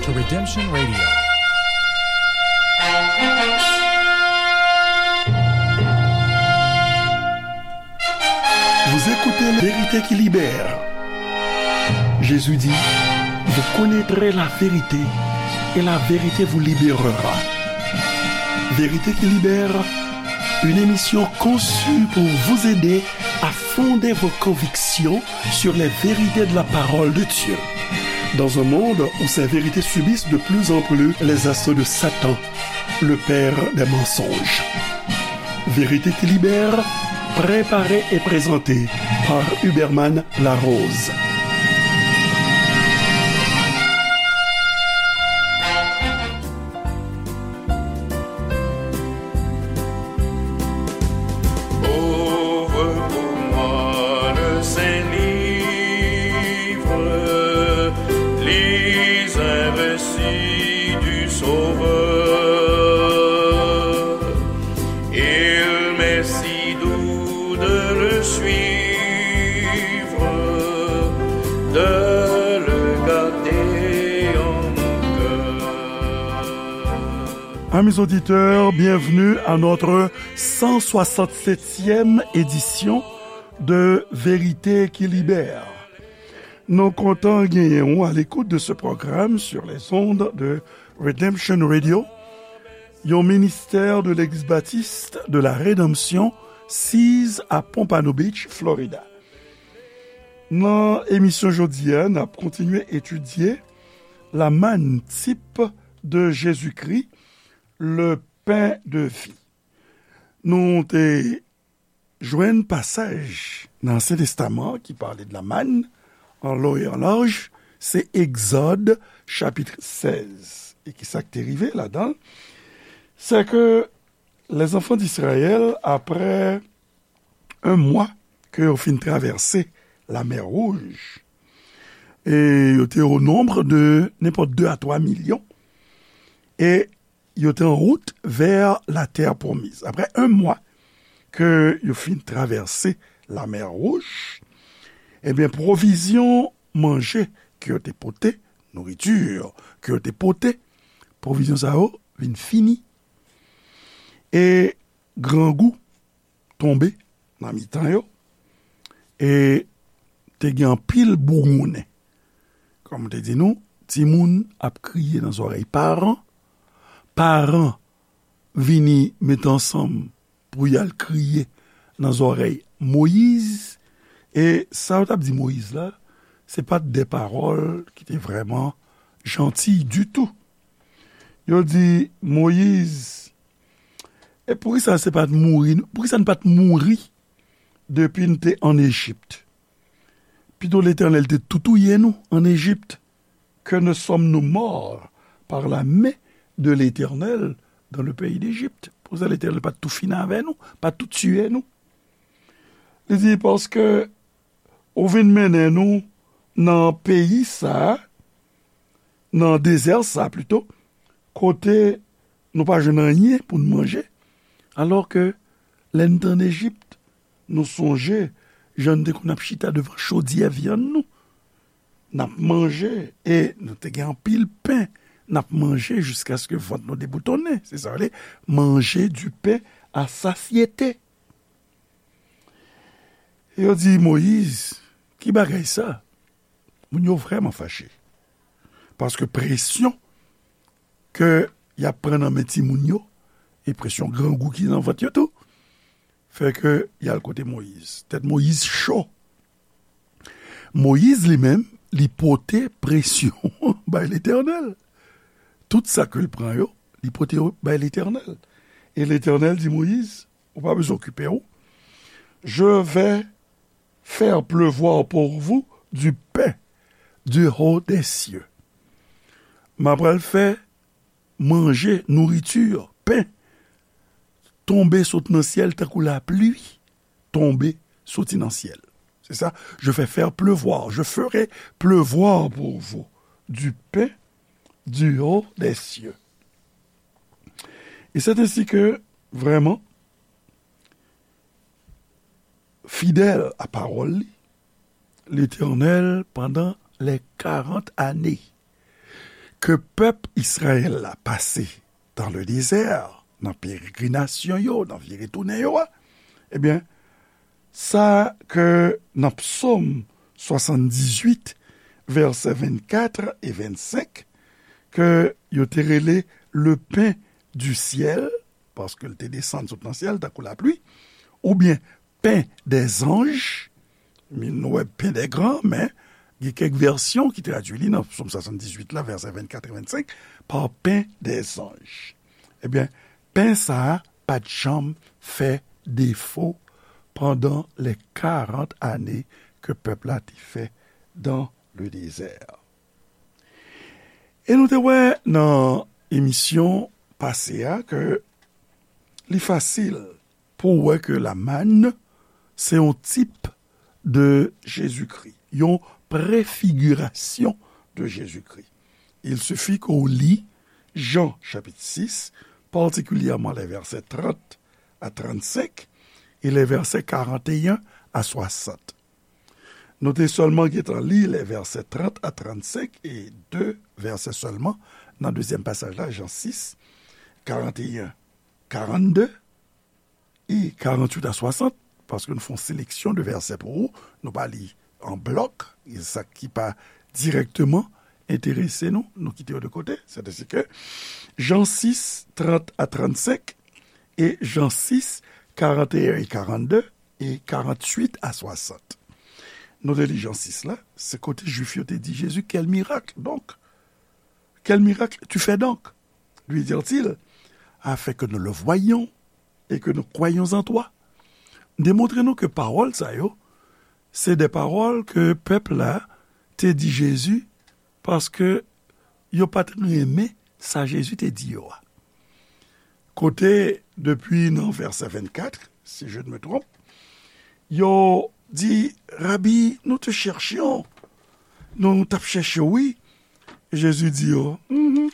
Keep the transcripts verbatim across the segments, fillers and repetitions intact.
Redemption Radio. Vous écoutez La vérité qui libère. Jésus dit, vous connaîtrez la vérité et la vérité vous libérera. Vérité qui libère, une émission conçue pour vous aider à fonder vos convictions sur les vérités de la parole de Dieu. Dans un monde où ces vérités subissent de plus en plus les assauts de Satan, le père des mensonges. Vérité qui libère, préparée et présentée par Huberman Larose. Ouvre pour moi le Saint-Livre, lis un récit du Sauveur. Il m'est si doux de le suivre, de le garder en mon cœur. Amis auditeurs, bienvenue à notre cent soixante-septième édition de Vérité qui Libère. Nou kontan genyen w à l'écoute de ce programme sur les ondes de Redemption Radio, yon ministè de Legliz Batis de la Redanmsyon, siz à Pompano Beach, Florida. Nan emisyon jodi a, n ap kontinye etidye la manne, type de Jésus-Christ, le pain de vie. Nou te jwenn pasaj nan Ansyen Testaman ki pale de la manne, an long e an laj, se Egzòd, chapit sèz. E ki sa k te rive ladan l? Se ke les enfants d'Israël, après un mois ke yo fin travèse Lamè Wouj, e yo te au nombre de nenpòt deux à trois millions, e yo te en route vers la terre promise. Après un mois ke yo fin travèse Lamè Wouj, ebyen, pwovizyon manje ke yo te pote, nourriture ke yo te pote, pwovizyon sa yo vin fini. E grangou tonbe nan mitan yo, e te gen anpil bougounnen. Kòm m te di nou, timoun ap kriye nan zòrèy paran, paran vini mete ansanm pou y al kriye nan zòrèy Moyiz, e sa yo t ap di Moyiz la, se pa t de pawòl ki te vrèman jantiy ditou. Yo di Moyiz, e poukisa se pa t mouri, poukisa n pa t mouri depi n te ann Ejip? Pito Letènèl te tou touye nou ann Ejip. Que ne sommes-nous morts par la main de l'Éternel dans le pays d'Égypte? Poukisa Letènèl pa t tou fini avè nou, pa t tou tiye nou? Li di, paske ou vin mennen nou nan peyi sa a, nan dezè sa a pito, kote nou pa jwenn anyen pou n manje, alò ke lè n te ann Ejip, nou sonje jan n te konn ap chita devan chodyè vyann nou, n ap manje, e nou te gen anpil pen, n ap manje jiskaske vant nou deboutonnen. Se sa yo rele manger du pain à satiété. Yo di Moyiz, ki bagay sa? Moun yo vrèman fache. Paske presyon ke y ap pran nan men timoun yo, e presyon grangou ki nan vant yo tou, fè ke y al kote Moyiz. Tèt Moyiz cho. Moyiz li menm, li pote presyon bay Letènèl. Tout sa ke l pran yo, li pote yo bay Letènèl. E Letènèl di Moyiz, ou pa bezwen okipe w. Je vais faire pleuvoir pour vous du pain du haut des cieux. M ap pral fè manje, nouriti, pen, tonbe sot nan syèl tankou lapli tonbe soti nan syèl. Se sa, je fais faire pleuvoir, je ferai pleuvoir pour vous du pain du haut des cieux. Et c'est ainsi que, vraiment, fidèl a pawòl li, Letènèl, pandan les quarante années, ke pèp Izrayèl la pase dans le désert, nan peregrinasyon yo, nan vire tounen yo a, ebyen, sa ke nan Psaume soixante-dix-huit, vèsè vennkat e vennsenk, ke yo te rele le pain du ciel, paske l te desann sot nan syèl tankou lapli, oubyen pain des anges, nou wè pain des grands, men gen kèk vèsyon ki tradui li nan Psaume soixante-dix-huit la, vèsè vennkat e vennsenk, par pain des anges. Ebyen, pen sa a pa t janm fè defo pandan les quarante années ke pèp la te fè dans le désert. E nou te wè nan emisyon pase a ke li fasil pou w wè ke la manne se yon tip de Jezikri, yon prefigirasyon de Jezikri. Il suffit ke w li Jan chapit sis, patikilyèman les versets trente à trente-cinq et les versets quarante et un à soixante. Nou te sèlman gentan li les versets trente à trente-cinq e de vèsè sèlman nan dezyèm pasaj la, Jan sis, quarante et un, quarante-deux, e quarante-huit à soixante, paske nou fè yon seleksyon de vèsè pou ou, nou pa li an blòk, e sa ki pa dirèkteman enterese nou, nou kite yo de kote. Sètadi ke Jan sis, trant a trannsenk, e Jan sis, karanteyen e karannde, e karanntuit a swasant. Nou te li Jan sis la, se kote Jwif yo te di Jezi, quel miracle donc? Quel miracle tu fais donc? Lui dirent-ils, afin que nous le voyions et que nous croyions en toi. Demontre nou ke pawòl sa yo, se de pawòl ke pèp la te di Jezi, paske yo pa t renmen sa Jezi te di yo a. Kote, depi nan vèsè vennkat, si je ne me trompe, yo di, Rabi, nous te cherchions. Nou t ap chèche w, wi. Jezi di yo, Mhm.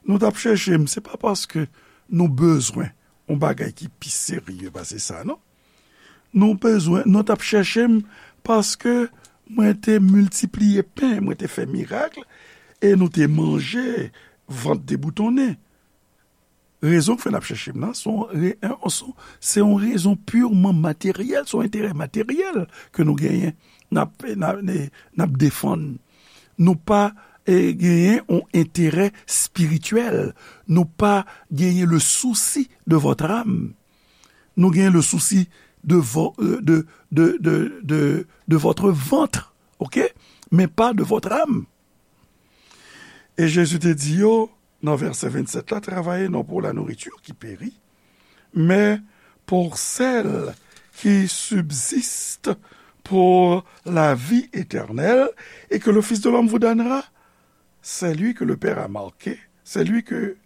Nou t ap chèche m, se pa paske nou bezwen yon bagay ki pi serye pase sa, non. Nou bezwen, nou t ap chèche m paske mwen te miltipliye pen, mwen te fè mirak, e nou te manje, vant deboutonnen. Rezon k fè n ap chèche m nan, se yon re-, se yon, se yon rezon pirman materyèl, se yon enterè materyèl ke nou genyen, n ap, n ap, n ap defann. Nou pa, eh, genyen yon enterè espirityèl. Nou pa genyen le souci de votre âme. Nou genyen le souci de vo-, euh, de, de, de, de, de votre ventre, ok? Mais pas de votre âme. E Jezi te di yo, nan vèsè vennsèt la, travaillez non pour la nourriture qui périt, mais pour celle qui subsiste pour la vie éternelle et que le Fils de l'homme vous donnera. C'est lui que le Père a marqué, c'est lui que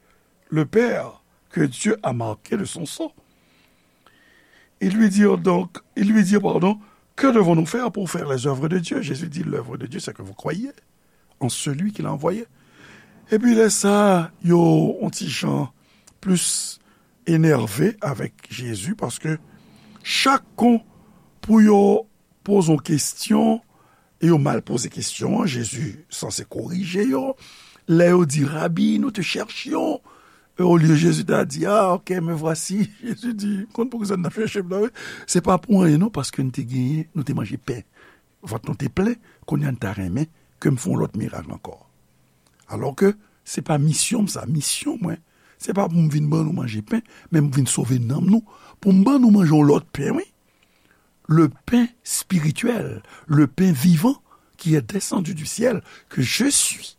le Père que Dieu a marqué de son sang. Ils lui dirent donc, ils lui dirent, pardon, que devons-nous faire pour faire les œuvres de Dieu? Jésus dit, l'œuvre de Dieu, c'est que vous croyez en celui qu'il a envoyé. Epi lè sa, yo yon ti jan plis enève avèk Jezi, paske chak kon pou yo poze yon kesyon, e yo mal poze kesyon an, Jezi sanse korije yo. Lè yo di, Rabi, nous te cherchions, e olye Jezi ta di, ah, ok, me voici. Jezi di, konn poukisa n ap chèche m nan, wi. Se pa pou anyen, non, paske n te genyen, nou te manje pen. Vant nou te plen, kounye a n ta renmen ke m fè yon lòt mirak ankò. Alò ke se pa misyon m sa, misyon mwen, se pa pou m vin ban nou manje pen, men m vin sove nanm nou, pou m ban nou manje yon lòt pen, wi. Le pain spirituel, le pain vivant qui est descendu du ciel, que je suis.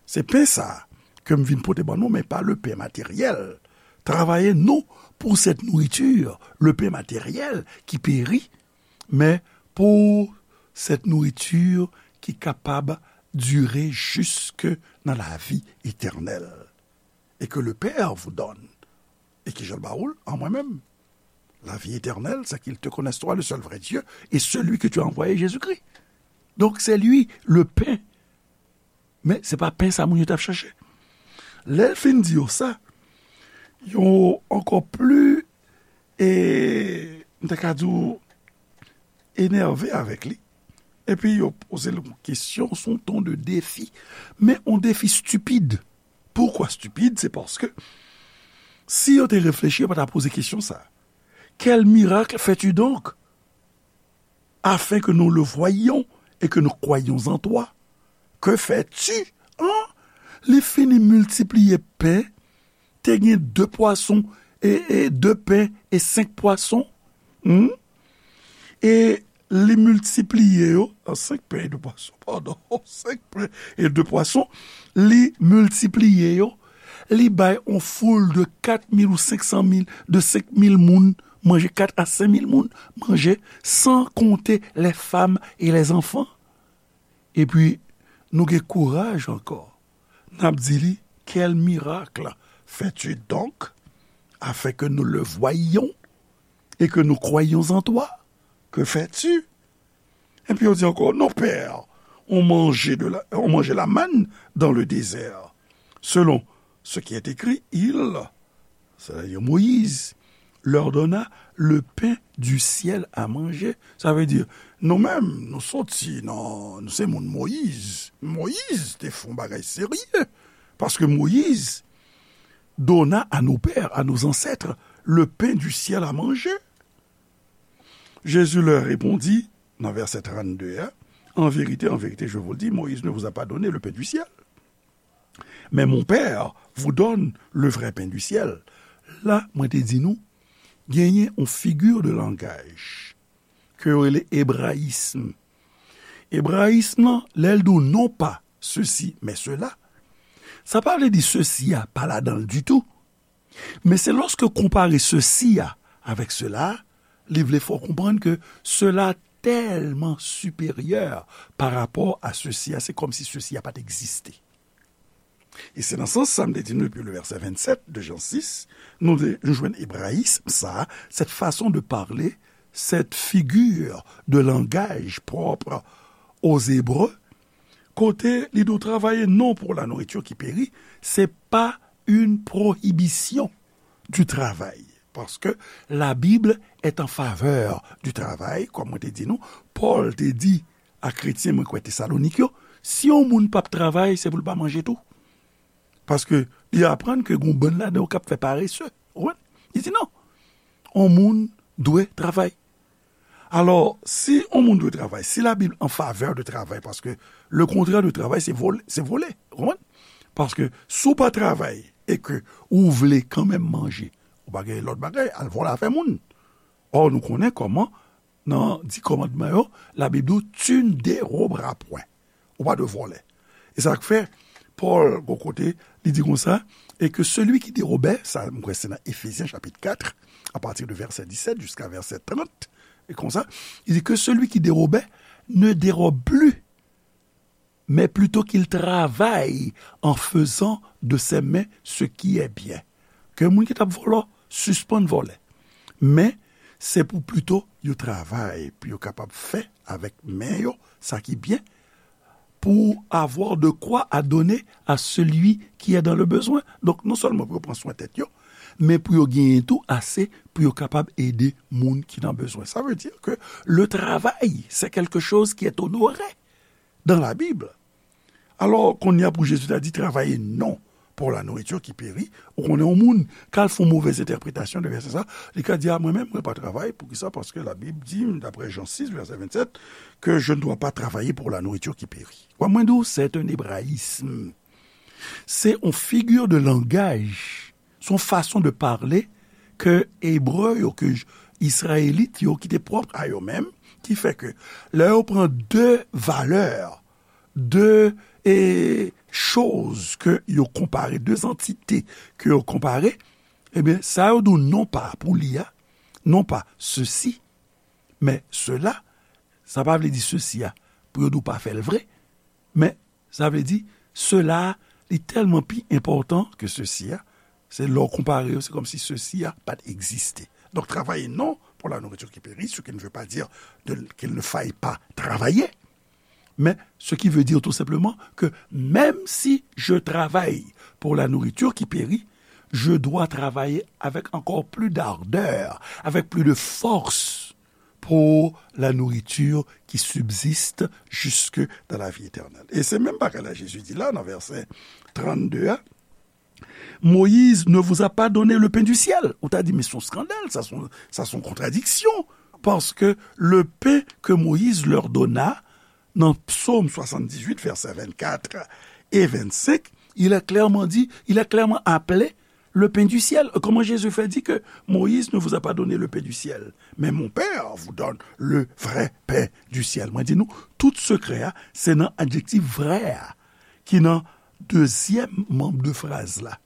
Se pen sa a ke m vin pote ban nou, men pa le pain matériel. Travaillez non pour cette nourriture, le pain matériel qui périt, mais pour cette nourriture qui est capable de durer jusque dans la vie éternelle. Et que le Père vous donne. E ki jan l ba ou l? An mwen menm. La vie éternelle, c'est qu'ils te connaissent toi, le seul vrai Dieu, et celui que tu as envoyé, Jésus-Christ. Donc, c'est lui, le pain. Men se pa pen sa moun yo t ap chèche. Lè l fin di yo sa, yo ankò pli, e, m ta ka di w, enève avèk li. Epi yo poze l yon kesyon sou yon ton de defi. Men yon defi stipid. Pourquoi stupide? C'est parce que si yo te reflechi, yo pa ta poze kesyon sa. Quel miracle fais-tu donc, afin que nous le voyions et que nous croyions en toi? Que fais-tu? Hein? Li fini miltipliye pen, te gen de pwason, e, e de pen e senk pwason. Hmm? E li miltipliye yo, a, senk pen e de pwason, padon, senk pen e de pwason, li miltipliye yo, li bay on foul de kat mil ou senk san mil, de senk mil moun manje, kat a senk mil moun manje, san konte les femmes et les enfants. Epi, nou gen kouraj ankò. N ap di li, quel miracle fais-tu donc, afin que nous le voyions et que nous croyions en toi? Que fais-tu? Epi yo di ankò, nos pères ont mangé de la, ont mangé la manne dans le désert, selon ce qui est écrit, il, c'est-à-dire Moïse, leur donna le pain du ciel à manger. Sa vle di, nou menm, nou soti nan, nou se moun Moyiz. Moyiz te fè yon bagay serye. Paske Moyiz donna à nos pères, à nos ancêtres, le pain du ciel à manger. Jésus leur répondit, nan vèsè trannde a, en vérité, en vérité, je vous le dis, Moïse ne vous a pas donné le pain du ciel. Mais mon Père vous donne le vrai pain du ciel. La, mwen te di nou, genyen yon figi de langaj ke yo rele ebrayism. Ebrayism lan, lè l di w non pa ceci, mais cela, sa pa vle di ceci a pa ladan l ditou. Men se lòske w konpare ceci a avèk cela, li vle fè w konprann ke cela tèlman siperyè pa rapò a ceci a, se kòmsi ceci a pa t egziste. E se nan sans sa m te di nou depi le vèsè vennsèt de Jan sis, nou de, nou jwenn ebrayism sa, cette façon de parler, cette figure de langage propre aux Hébreux, kote li di w travailler non pour la nourriture qui périt, c'est pas une prohibition du travail. Parce que la Bible est en faveur du travail, kòm mwen te di nou, Pòl te di a kretyen, mwen kwè, Tesalonik yo, si yon moun p ap travay, se pou l pa manje tou. Paske li aprann ke gon bann ladan yo k ap fè parese. Ou konprann? Li di non. On moun dwe travay. Alò, si on moun dwe travay, si Labib an favè de travay, paske le kontrè de travay, se vòl-, se vòlè. Ou konprann? Paske si w pa travay e ke ou vle kanmenm manje, ou pa gen lòt bagay, al vòlè afè moun. Ò, nou konnen kòman, nan Di Kòmandman yo, Labib di w, tu ne dérobras point. Ou pa dwe vòlè. E sa k fè, Pòl, gon kote, li di konsa, et que celui qui dérobait, sa, m kwè se nan Efezyen chapit kat, à partir de verset dix-sept jusqu'à verset trente, e konsa, li di que celui qui dérobait ne dérobe plus, mais plutôt qu'il travaille en faisant de ses mains ce qui est bien. Ke moun ki t ap vòlè, sispann vòlè. Men, se pou pito yo travay, pou yo kapab fè avèk men yo sa ki byen, pour avoir de quoi à donner à celui qui est dans le besoin. Donk, non sèlman pou yo pran swen tèt yo, men pou yo genyen tou ase pou yo kapab ede moun ki nan bezwen. Ça veut dire que le travail, c'est quelque chose qui est honoré dans la Bible. Alò, kounye a pou Jezi ta di, travaillez non pour la nourriture qui périt, ou konnen yon moun, k al fè yon movèz entèpretasyon de vèsè sa, li ka di, a, mwen menm, mwen pa travay, poukisa? Paske Labib di m, daprè Jan sis, vèsè vennsèt, que je ne dois pas travailler pour la nourriture qui périt. Wè, mwen di w, c'est un hébraïsme. Se yon figi de langaj, se yon fason de pale ke Ebre yo, ke J-, Izrayelit yo, ki te pwòp a yo menm, ki fè ke lè yo pran de valè, de, e, choz ke yo konpare, de antite ke yo konpare, ebyen, sa yo di w non pa pou li a, non pa ceci, men cela, sa pa vle di ceci a, pou yo di w pa fè l vre, men sa vle di, cela, li tèlman pi enpòtan ke ceci a, se lè w konpare yo, se kòmsi ceci a pa t egziste. Donc, travailler non pour la nourriture qui périt, ce qui ne veut pas dire de, qu'il ne faille pas travailler. Mais ce qui veut dire tout simplement que même si je travaille pour la nourriture qui périt, je dois travailler avec encore plus d'ardeur, avec plus de force pour la nourriture qui subsiste jusque dans la vie éternelle. E se menm bagay la Jezi di la nan vèsè trannde a, Moïse ne vous a pas donné le pain du ciel. Ou ta di, men se yon skandal, sa se yon, sa se yon kontradiksyon. Parce que le pain que Moïse leur donna, nan Psaume soixante-dix-huit, versets vingt-quatre et vingt-cinq, il est clairement dit, il est clairement appelé le pain du ciel. Comment Jésus fait dire que Moïse ne vous a pas donné le pain du ciel, mais mon Père vous donne le vrai pain du ciel. Mwen di nou, tout sekrè a, se nan adjektif vrè a, ki nan dezyèm manm de fraz la.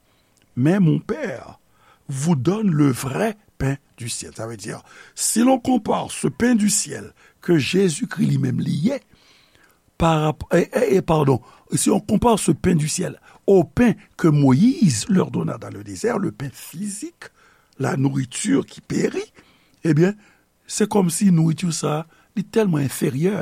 Mais mon Père vous donne le vrai pain du ciel. Ça veut dire, si l'on compare ce pain du ciel que Jésus-Christ lui-même li ye, par rapport, et, et, et pardon, si on compare ce pain du ciel au pain que Moïse leur donna dans le désert, le pain physique, la nourriture qui périt, eh bien, se kòmsi nouriti sa, li tèlman enferyè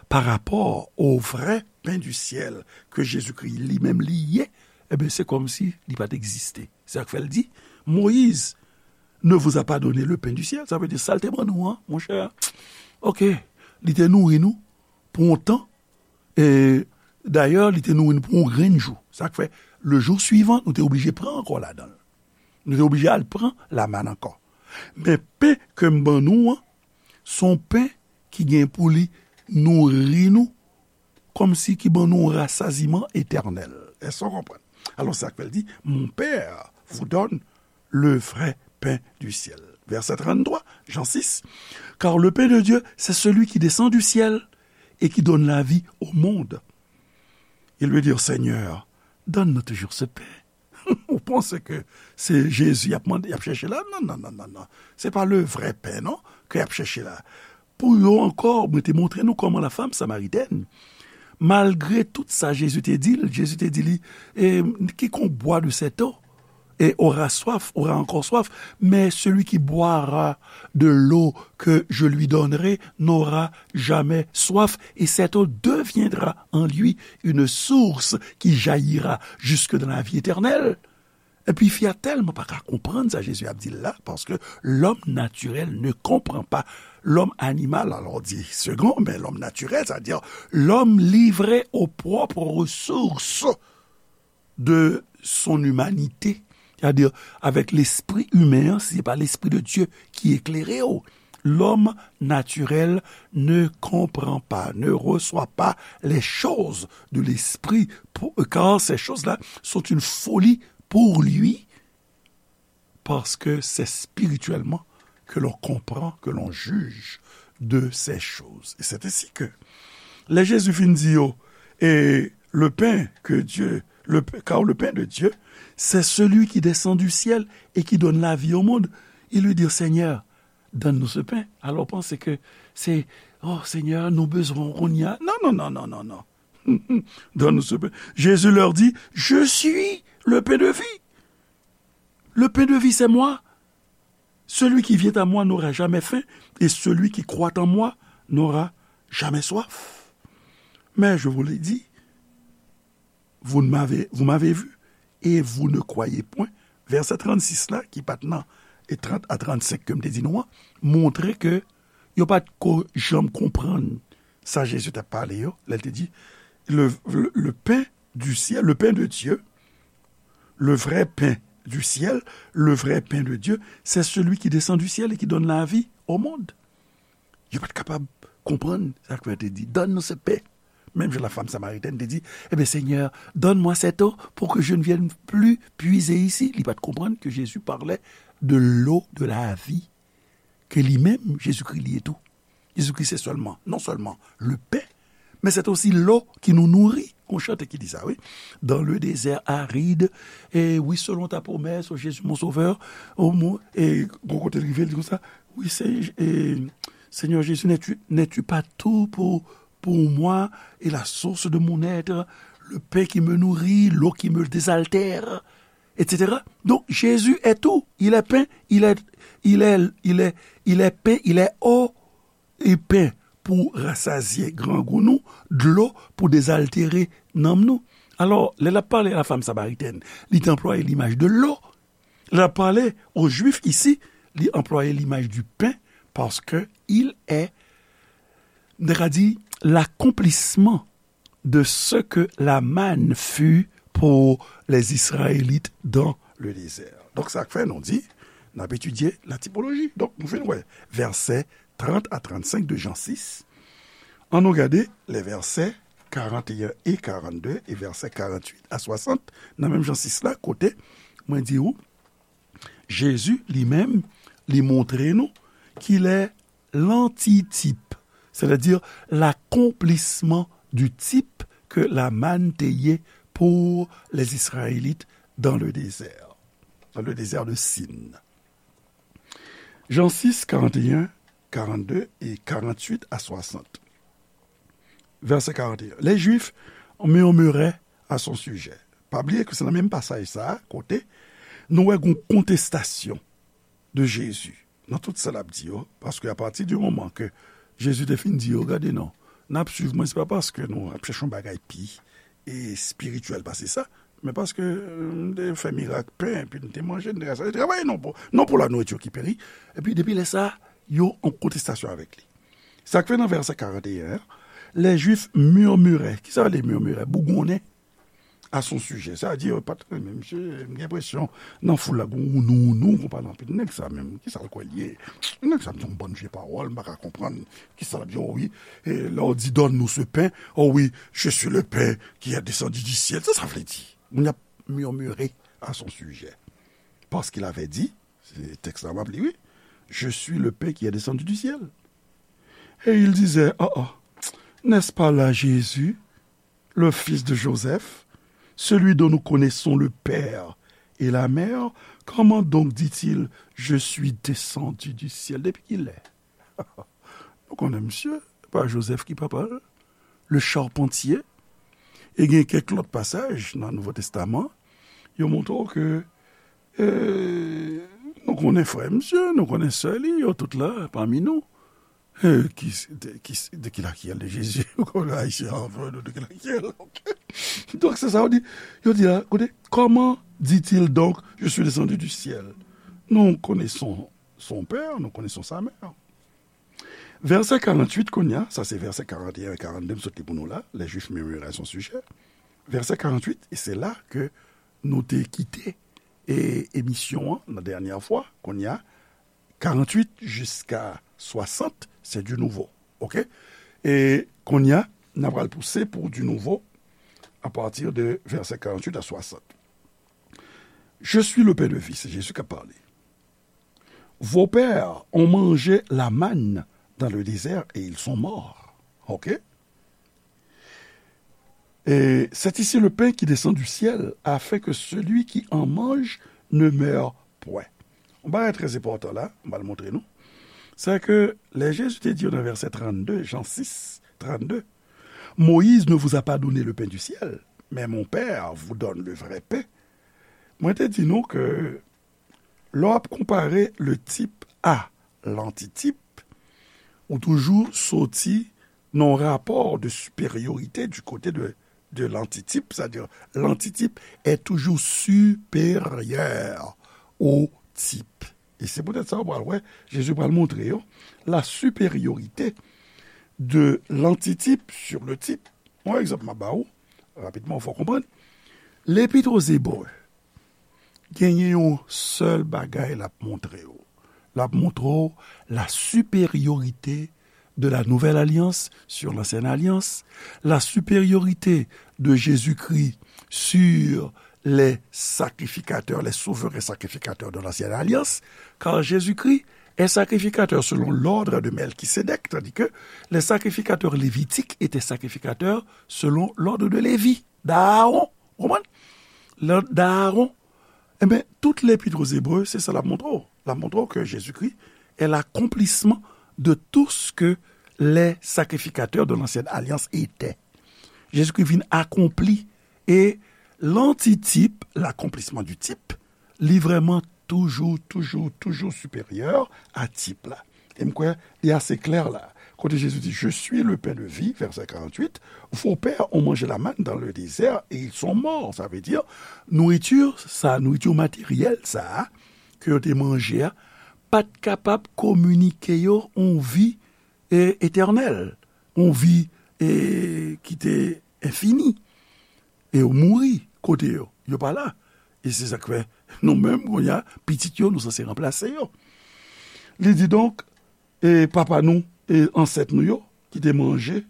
pa rapò au vrai pain du ciel que Jésus-Christ li menm li ye, eh bien, se kòmsi li pa t egziste. Se sa k fè l di, Moïse ne vous a pas donné le pain du ciel. Sa vle di, sa l te ban nou an, monchè, ok, li te nouri nou pou yon tan, e dayè, li te nouri nou pou yon grenn jou. Sa k fè, le jou swivan, nou te oblije pran ankò ladan l. Nou te oblije al pran lamann ankò. Men pen ke m ban nou an, se yon pen ki gen pou li nouri nou, kòmsi ki ban nou yon rasaziman etènèl. Èske w konprann? Alò, sa k fè l di, mon Père vous donne le vrai pain du ciel. Verset trente-trois, Jean six. Car le pain de Dieu, c'est celui qui descend du ciel et qui donne la vie au monde. Ils lui dirent, Seigneur, donne-nous toujours ce pain. Ou panse ke se Jezi y ap mande, y ap chèche la? Non, non, non, non, non. Se pa le vrai pain, non, ke y ap chèche la. Pou yo ankò, mwen te montre nou kòman la femme samaritaine, malgre tout sa Jezi te di l, Jezi te di li, e, quiconque boit de cette eau, et aura soif, aura encore soif, mais celui qui boira de l'eau que je lui donnerai n'aura jamais soif, et cette eau deviendra en lui une source qui jaillira jusque dans la vie éternelle. Epi fi a tèlman pa ka konprann sa Jezi ap di l la, paske l'homme naturel ne comprend pas. L'homme animal, alors dit second, mais l'homme naturel, c'est-à-dire l'homme livré aux propres ressources de son humanité, c'est-à-dire avec l'esprit humain, si c'est pas l'esprit de Dieu qui éclaire, l'homme naturel ne comprend pas, ne reçoit pas les choses de l'esprit, pour, car ces choses-là sont une folie pour lui, parce que c'est spirituellement que l'on comprend, que l'on juge de ces choses. Et c'est ainsi que, lè Jezi fin di yo, et le pain que Dieu, le, car le pain de Dieu, c'est celui qui descend du ciel et qui donne la vie au monde. Il lui dit, Seigneur, donne-nous ce pain. Alors, panse ke se, oh, Seigneur, nou bezwen kounye a. Non, non, non, non, non, non. Donne-nous ce pain. Jésus leur dit, je suis le pain de vie. Le pain de vie, c'est moi. Celui qui vient à moi n'aura jamais faim, et celui qui croit en moi n'aura jamais soif. Mais je vous l'ai dit, vous ne m'avez, vous m'avez vu, et vous ne croyez point. Verset trannsis la, ki pa t nan, e trant a trannsenk ke m te di nou an, montre ke yo pa t ko janm konprann sa Jezi t ap pale yo, lè l te di, le, le, le pain du ciel, le pain de Dieu, le vrai pain du ciel, le vrai pain de Dieu, c'est celui qui descend du ciel et qui donne la vie au monde. Yo pa t kapab konprann sa k fè te di, donne-nous ce pain. Menm jan la femme samaritaine te di, eh bien, Seigneur, donne-moi cette eau pour que je ne vienne plus puiser ici. Li pa t konprann ke Jezi parlait de l'eau de la vie, ke li menm, Jezikri li ye tou. Jezikri se sèlman, non sèlman le pain, mais c'est aussi l'eau qui nous nourrit. Gon chante ki di sa, wi. Dans le désert aride, et oui, selon ta promesse, oh Jésus mon sauveur, oh mon, e gon kote l rive, l di konsa, oui, c'est, et, Seigneur Jésus, n'es-tu, n'es-tu pas tout pour, pour moi et la source de mon être, le pain qui me nourrit, l'eau qui me désaltère, et cetera. Donc, Jésus est tout. Il est pain, il est, il est, il est, il est pain, il est eau, e pen pou rasazye grangou nou, dlo pou dezaltere nanm nou. Alò, lè l ap pale a la femme samaritaine, li te anplwaye limaj de l'eau. Lè l ap pale aux Juifs ici, li anplwaye limaj du pain, paske il est, nou ta ka di, l'accomplissement de ce que la manne fut pour les Israélites dans le désert. Donk, sa k fè nou di, n ap etidye la tipoloji. Donk, nou fin wè vèsè trant a trannsenk de Jan sis. Ann nou gade lè vèsè karanteyen e karannde e vèsè karanntuit a swasant nan menm Jan sis la, kote mwen di ou, Jezi li menm, li montre nou ki lè lantitip, c'est-à-dire l'accomplissement du type que la manne te ye pour les Israélites dans le désert, dans le désert de Sin. Jan sis, karanteyen, karannde e karanntuit a swasant. Vèsè karanteyen. Les Juifs murmuraient à son sujet. Pa bliye ke se nan menm pasaj sa a, kote nou wè gon kontestasyon de Jezi nan tout sa l ap di yo, paske apati di moman ke Jezi te fin di yo, gade non, n ap swiv mwen, se pa paske nou ap chèche yon bagay pi espirityèl pase sa, men paske m te fè mirak pen, epi n te manje, n te travay non pou, non pou la nourriture qui périt. Epi depi lè sa a, yo an kontestasyon avèk li. Sa k fè nan vèsè karanteyen an, les Juifs murmuraient. Kisa vle murmurer? Bougonnen à son sujet. Sa di, yo pa t renmen misye, m gen enpresyon, nan foul la, gon wounou, wounou, gon pale anpil. Nèg sa menm, kisa l kwè l ye? Nèg sa di yon bann vye pawòl, m pa ka konprann kisa l ap di, oh wi, e lè w di, donne-nous ce pain, oh wi, je suis le pain qui est descendu du ciel. Sa sa vle di? Moun ap murmurer à son sujet. Parce qu'il avait dit, se tèks la m ap li, wi, je suis le pain qui est descendu du ciel. Et il disait, oh, oh, n'est-ce pas là Jésus, le fils de Joseph, celui dont nous connaissons le père et la mère? Comment donc dit-il, je suis descendu du ciel? Depi kilè? Nou konnen misye, pa Joseph ki papa l, le charpentier. E gen kèk lòt pasaj nan Nouvo Testaman, yo montre w ke, e, nou konnen frè misye, nou konnen sè li, yo tout la pami nou. E, ki, de, ki, de qui la qui elle de Jésus? Ou konnen Ayisyen an fè nou de qui la qui elle, ok? Donk, se sa yo di. Yo di la, koute, comment dit-il donc, je suis descendu du ciel? Nous connaissons son père, nous connaissons sa mère. Vèsè karanntuit kounye a, sa se vèsè karanteyen e karannde m sot li pou nou la, les Juifs murmuraient à son sujet. Vèsè karanntuit, e se la ke nou te kite, e, emisyon an, la dènyè fwa, kounye a, karanntuit jiska swasant, se du nouveau, ok? E kounye a, n a pral pouse pou du nouveau, à partir de vèsè karanntuit a swasant. Je suis le pain de vie, se Jezi k ap pale. Vos pères ont mangé la manne dans le désert et ils sont morts. Ok? Et c'est ici le pain qui descend du ciel, afin que celui qui en mange ne meure point. Yon bagay trè enpòtan la, m pral montre nou. Se ke lè Jezi te di yo nan vèsè trannde, Jan sis, trannde, Moïse ne vous a pas donné le pain du ciel, mais mon Père vous donne le vrai pain. Mwen te di nou ke lè w ap konpare le type à l'antitype, ou toujou soti nan yon rapò de siperyorite du kote de, de l'antitype, c'est-à-dire l'antitype est toujours supérieur au type. E se poutèt sa, w pral wè, Jezi pral montre yo la supériorité de l'antitype sur le type. Yon egzanp m ap ba ou, rapidman, fò w konprann. Lepit o Zebre, genyen yon sèl bagay l ap montre w. L ap montre w la supériorité de la nouvelle alliance sur l'ancienne alliance, la supériorité de Jésus-Christ sur les sacrificateurs, les souverains sacrificateurs de l'ancienne alliance, car Jésus-Christ est sacrificateur selon l'ordre de Melchisédek, tandis que les sacrificateurs lévitiques étaient sacrificateurs selon l'ordre de Lévi, d'Aaron. Ou konprann? L'ordre d'Aaron. Ebyen, tout Lepit o Zebre, se sa l ap montre w. L ap montre w ke Jezikri est l'accomplissement de tout ce que les sacrificateurs de l'ancienne alliance étaient. Jezikri vin akonpli, e l'antitype, l'accomplissement du type, li vrèman toujou, toujou, toujou siperyè a tip la. E m kwè li ase klè la. Kote Jezi di, je suis le pain de vie, vèsè karanntuit, vos pères ont mangé la manne dans le désert et ils sont morts. Sa vle di, nouriti sa, nouriti materyèl sa a, ke yo te manje a, pa t kapab kominike yo yon vi, e, etènèl, yon vi, e, ki te enfini. E yo mouri, ote yo, yo pa la. E se sa k fè nou menm, kounye a, pitit yo, nou sanse ranplase yo. Li di donk, e papa nou, e ansèt nou yo, ki te manje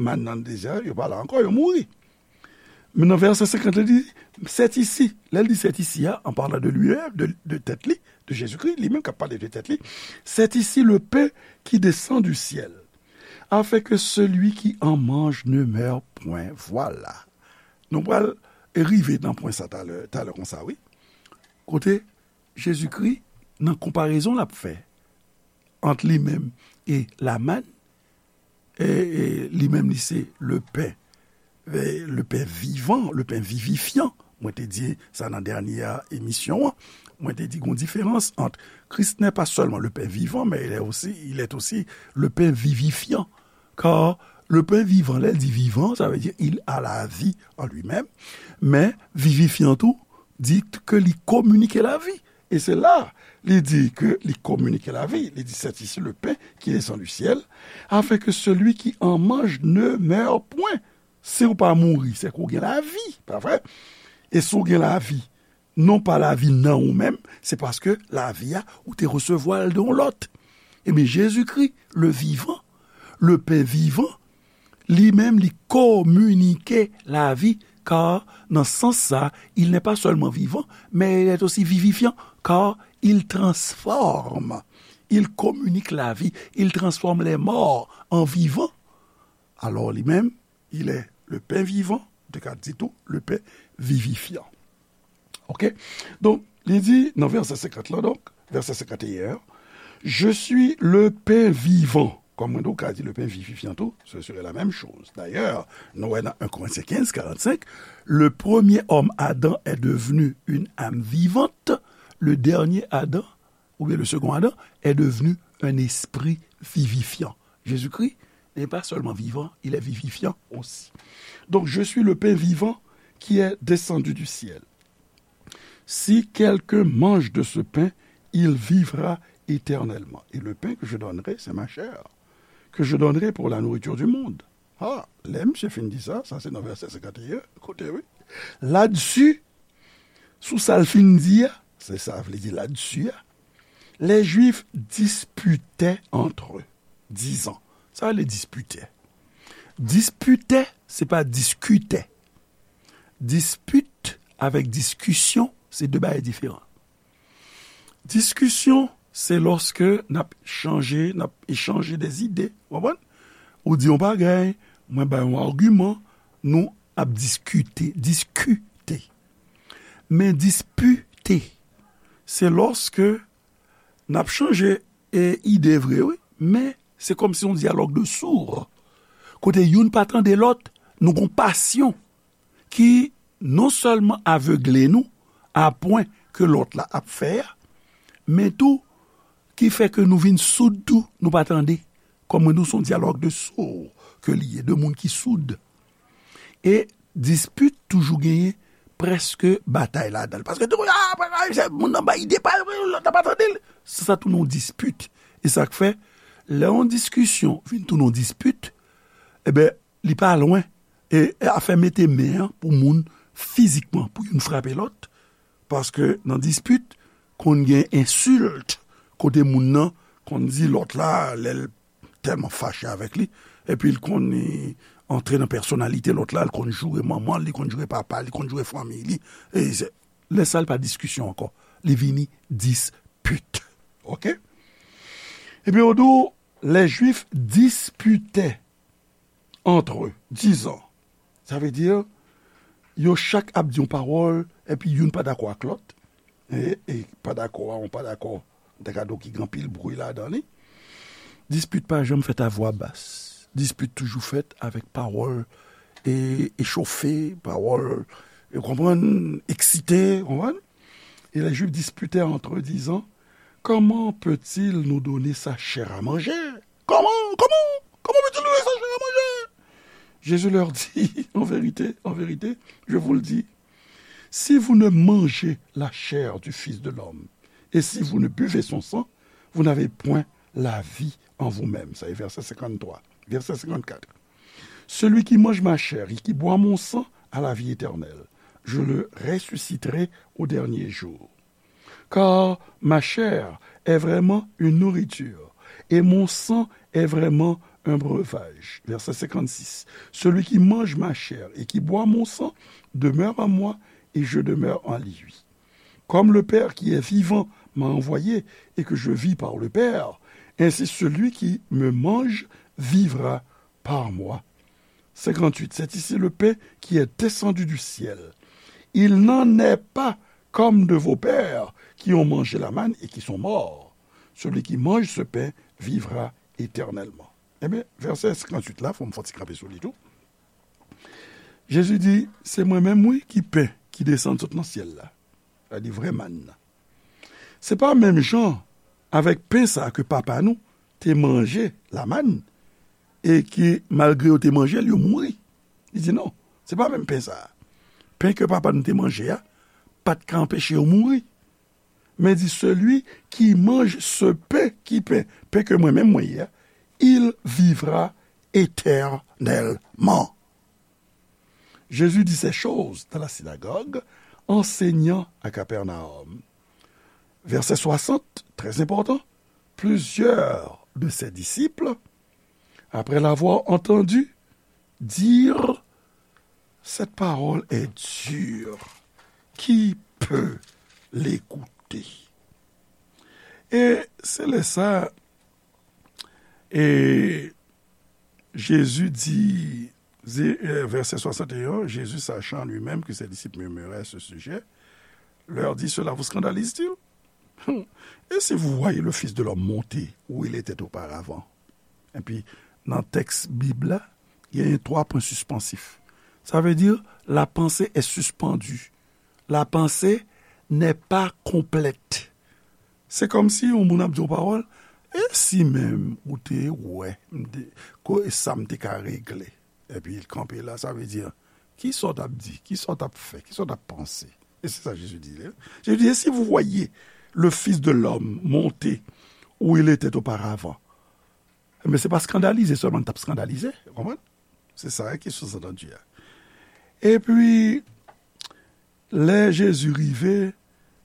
mann nan dezè, yo pa la ankò, yo mouri. Men nan vèsè senkant, li di, c'est ici. Lè l di c'est ici a, en parlant de lui-même, de, de tèt li, de Jezikri, li menm k ap pale de tèt li, c'est ici le pain qui descend du ciel, afin que celui qui en mange ne meure point. Vwala. Nou pral rive nan pwen sa talè, talè konsa, wi. Kote Jezikri, nan konparezon l ap fè ant li menm e lamann, e, e li menm li se le pen, e, le pen vivan, le pen vivifyan. Mwen te di sa nan dènye emisyon an. Mwen te di gon diferans ant Christ n'est pas seulement le pain vivant, mais il est aussi, il est aussi le pain vivifiant. Car le pain vivant, lè l di vivan, sa vle di il a la vie en lui-même. Men vivifyan tou, di ke li kominike lavi. E se la, li di ke li kominike lavi. Li di, c'est ici le pain qui descend du ciel, afin que celui qui en mange ne meure point. Si w pa mouri, se ke w gen lavi, pa vre? E si w gen lavi, non pa lavi nan ou menm, se paske lavi a, ou te resevwa l de yon lòt. Ebyen, Jezikri, le vivant, le pain vivant, li menm, li kominike lavi, car nan sans sa, il n'est pas seulement vivant, mais il est aussi vivifiant, car il transforme, il communique la vie, il transforme les morts en vivants. Alors, li menm, il est le pain vivant, de ka di tou, le pain vivifiant. Ok? Donk, li di nan vèsè senkant lan, donk, vèsè senkant et un, je suis le pain vivant. Kòm mwen, donk, ka di le pain vivifiant tou, ce serait la même chose. D'ailleurs, nou wè nan un Corinthiens quinze, quarante-cinq, le premier homme, Adam, est devenu une âme vivante, le dernier Adam, ou bien le second Adam, est devenu un esprit vivifiant. Jésus-Christ n'est pas seulement vivant, il est vivifiant aussi. Donc, je suis le pain vivant qui est descendu du ciel. Si quelqu'un mange de ce pain, il vivra éternellement. Et le pain que je donnerai, c'est ma chair, que je donnerai pour la nourriture du monde. Ah, lè misye fin di sa, sa se nan vèsè senkant et un, koute wi. Ladsi, sou sa l fin di a, se sa vle di ladsi a, les Juifs disputaient entre eux, disant. Sa vle disputaient. Disputaient, se pa diskitaient. Dispit avèk diskisyon, se de bagay diferan. Diskisyon, se lòske n ap chanje, n ap echanje de zide, w konprann? Ou di yon bagay, mwen bay yon agiman, nou ap diskite, diskite. Men dispite, se lòske n ap chanje, e, ide vre, wi, men se kòmsi yon dyalòg de sourd. Kote youn pa tande lòt, nou gon pasyon ki non sèlman avegle nou a pwen ke lòt la ap fè a, men tou ki fè ke nou vin soud tou, nou pa tande. Kòm mwen di w, se yon dyalòg de sourd ke li ye, de moun ki soud. E dispit toujou genyen prèske batay ladan l. Paske tou, ah, se moun nan bay ide pa l, lòt la pa tande l. Se sa tounen yon dispit. E sa k fè, lè yon diskisyon vin tounen yon dispit, e ben, li pa lwen. E, e afè mete men an pou moun fizikman, pou youn frape lòt. Paske nan dispit, konn gen ensilt, kote moun nan konn di lòt la, lè l tèlman fache avèk li, epi l konn, e, antre nan pèsonalite lòt la, l konn joure manman l, li konn joure papa l, li konn joure fanmi li. E se, lè sa l pa diskisyon ankò. Li vini dispit. Ok? Ebyen, yo di w, les Juifs disputaient entre eux, disant. Sa vle di, yo chak ap di yon pawòl, epi youn pa dakò ak lòt. E, e pa dakò a, yon pa dakò, m ta ka di w ki gen anpil bri ladan li. Dispit pa janm fèt a vwa bas. Dispit toujou fèt avèk pawòl, e, echofe, pawòl, ou konprann, eksite, ou konprann? Et les Juifs disputaient entre eux, disant, comment peut-il nous donner sa chair à manger? Comment, comment, comment peut-il nous donner sa chair à manger? Jésus leur dit, en vérité, en vérité, je vous le dis, si vous ne mangez la chair du Fils de l'homme, et si vous ne buvez son sang, vous n'avez point la vie en vous-même. Sa e vèsè senkant twa. Vèsè senkant kat. Celui qui mange ma chair et qui boit mon sang a la vie éternelle, je le ressusciterai au dernier jour. Car ma chair est vraiment une nourriture, et mon sang est vraiment un breuvage. Verset cinquante-six. Celui qui mange ma chair et qui boit mon sang demeure en moi, et je demeure en lui. Comme le Père qui est vivant m'a envoyé, et que je vis par le Père, ainsi celui qui me mange vivra par moi. Cinquante-huit. C'est ici le pain qui est descendu du ciel. Il n'en est pas comme de vos pères qui ont mangé la manne et qui sont morts. Celui qui mange ce pain vivra éternellement. Ebyen, vèsè senkantuit la, fò m fè yon ti kanpe sou li tou. Jezi di, se mwen menm, wi, ki pen ki desann sot nan syèl la. Sa di vrè mann nan. Se pa menm jan avèk pen sa ke papa nou te manje, lamann, e ke malgre yo te manje l, yo mouri. Li di non, se pa menm pen sa. Pen ke papa nou te manje a, pa t ka anpeche yo mouri. Men di, celui qui mange ce pain, ki pen, pen ke mwen menm mwen ye a, il vivra éternellement. Jésus dit ces choses dans la synagogue, enseignant à Capernaum. Verset soixante, très important, plusieurs de ses disciples, après l'avoir entendu dire, cette parole est dure, qui peut l'écouter? E se lè sa, e Jésus dit, verset soixante et un, Jésus, sachant lui-même que ses disciples murmuraient à ce sujet, leur dit, cela vous scandalise-t-il? Et si vous voyez le Fils de l'homme monter où il était auparavant? Epi, nan tèks Bib la, il y a trois points suspensifs. Ça veut dire, la pensée est suspendue. La pensée n'est pas complète. Se kòmsi yon moun ap di yon pawòl, e si menm ou te wè m te, ko, e sa m te ka regle. Epi l kanpe la, sa vle di, ki sa w t ap di, ki sa w t ap fè, ki sa w t ap panse? E se sa Jezi di, Jezi di, et si vous voyez le Fils de l'homme monter où il était auparavant, men se pa skandalize sèlman l t ap skandalize, ou konprann? Se sa ki souzantandi a. Epi, lè Jezi rive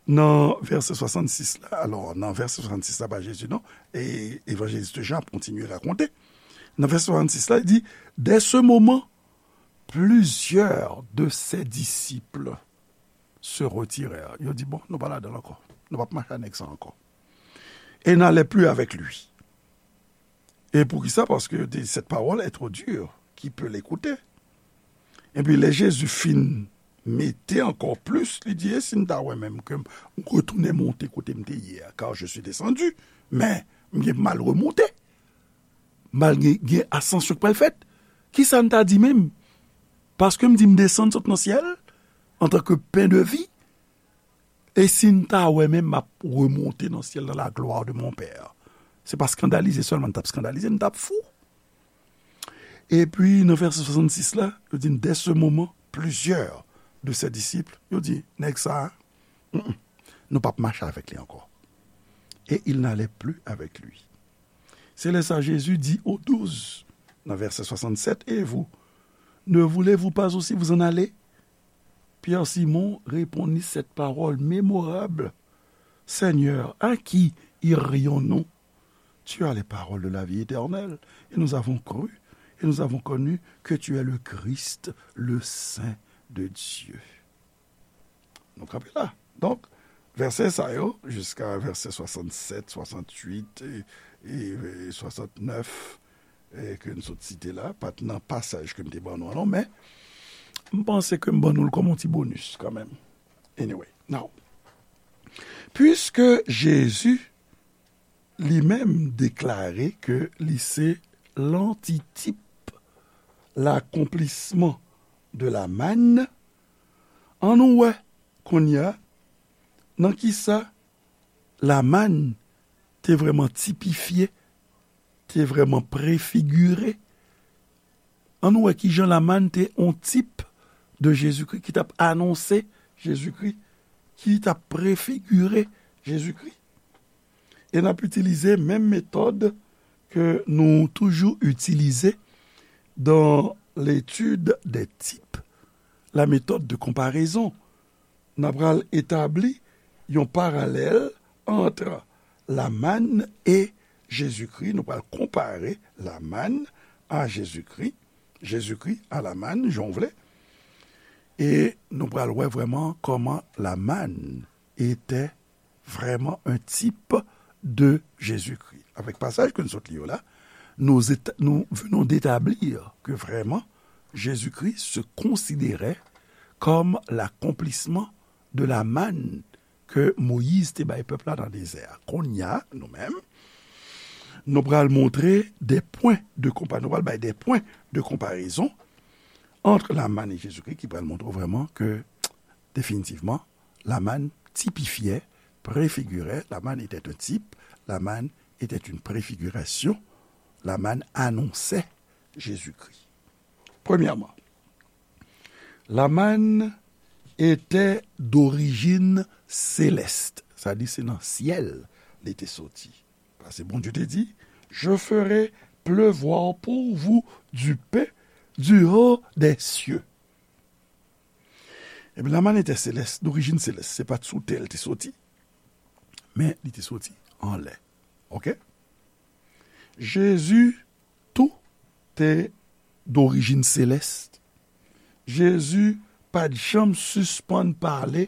nan vèsè swasannsis la, alò, nan vèsè swasannsis la, pa Jezi non, e evanjelis Jan ap kontinye rakonte. Nan vèsè swasannsis la, li di, dès ce moment, plusieurs de ses disciples se retirèrent. Yo di, bon, nou pa ladan l ankò. Nou p ap mache ak nèg sa ankò. Et n'allaient plus avec lui. E poukisa? Paske yo te di, cette parole est trop dure, qui peut l'écouter? Epi lè Jezi fin mete ankò plis, li di, e si m ta wè menm ke m retounen monte kote m te ye a, car je suis descendu, men m gen mal remonte. Mal gen, gen asansyon k pral fèt. Kisa n ta di menm? Paske m di m desann sot nan syèl, antanke pen de vi, e si n ta wè menm m ap remonte nan syèl dans la gloire de mon Père. Se pa skandalize sèlman n t ap skandalize, n t ap fou. Epi, nan vèsè swasannsis la, yo di, dès ce moment, plusieurs de ses disciples, yo di, nèg sa a, mm, mm, nou p ap mache avèk li ankò. Et ils n'allaient plus avec lui. Se lè sa Jezi di aux douze, nan vèsè swasannsèt, et vous, ne voulez-vous pas aussi vous en aller? Pierre Simon répondit cette parole mémorable, Seigneur, à qui irions-nous? Tu as les paroles de la vie éternelle, et nous avons cru, et nous avons connu que tu es le Christ, le Saint de Dieu. Nou kanpe la. Donk, vèsè sa yo, jiska vèsè swasannsèt, swasantuit e, e, e swasantnèf, e ke n sot site la, pa t nan pasaj ke m te ban nou an non, men m panse ke m ban nou l kòm yon ti bonis kanmenm. Anyway, now, puiske Jezi li menm deklare ke li se lantitip, l'accomplissement de la manne, ann nou wè kounye a nan kisa lamann te vrèman tipifye, te vrèman prefigire. Ann nou wè kijan lamann te yon tip de Jezikri ki t ap anonse Jezikri, ki t ap prefigire Jezikri. E n ap itilize menm metòd ke nou toujou itilize dans l'étude des types. la méthode de comparaison. N a pral etabli yon paralèl ant la manne et Jésus-Christ. Nou pral konpare la manne à Jésus-Christ, Jésus-Christ à la manne, jan w vle. E nou pral wè vrèman kòman la manne était vraiment un type de Jésus-Christ. Avec pasaj ke nou sot li yo la, nous, éta- nous venons d'établir que vraiment Jésus-Christ se considérait comme l'accomplissement de la manne ke Moyiz te bay pèp la nan dezè a. Kounye a, nou menm, nou pral montre des points de comparaison, nou pral bay des points de comparaison entre la manne et Jésus-Christ ki pral montre vrèman ke, definitivman, la manne tipifiait, préfigurait, la manne était un type, la manne était une préfiguration, la manne annonçait Jésus-Christ. Premyèman, la manne était d'origine céleste. Sa di se nan syèl li te soti. Paske Bondye te di, je ferai pleuvoir pour vous du pain du haut des cieux. Ebyen, la manne était céleste, d'origine céleste. Se pa t sou tè l te soti, men li te soti anlè. Oke? Jezi tou te d'origine céleste. Jezi pa t janm sispann pale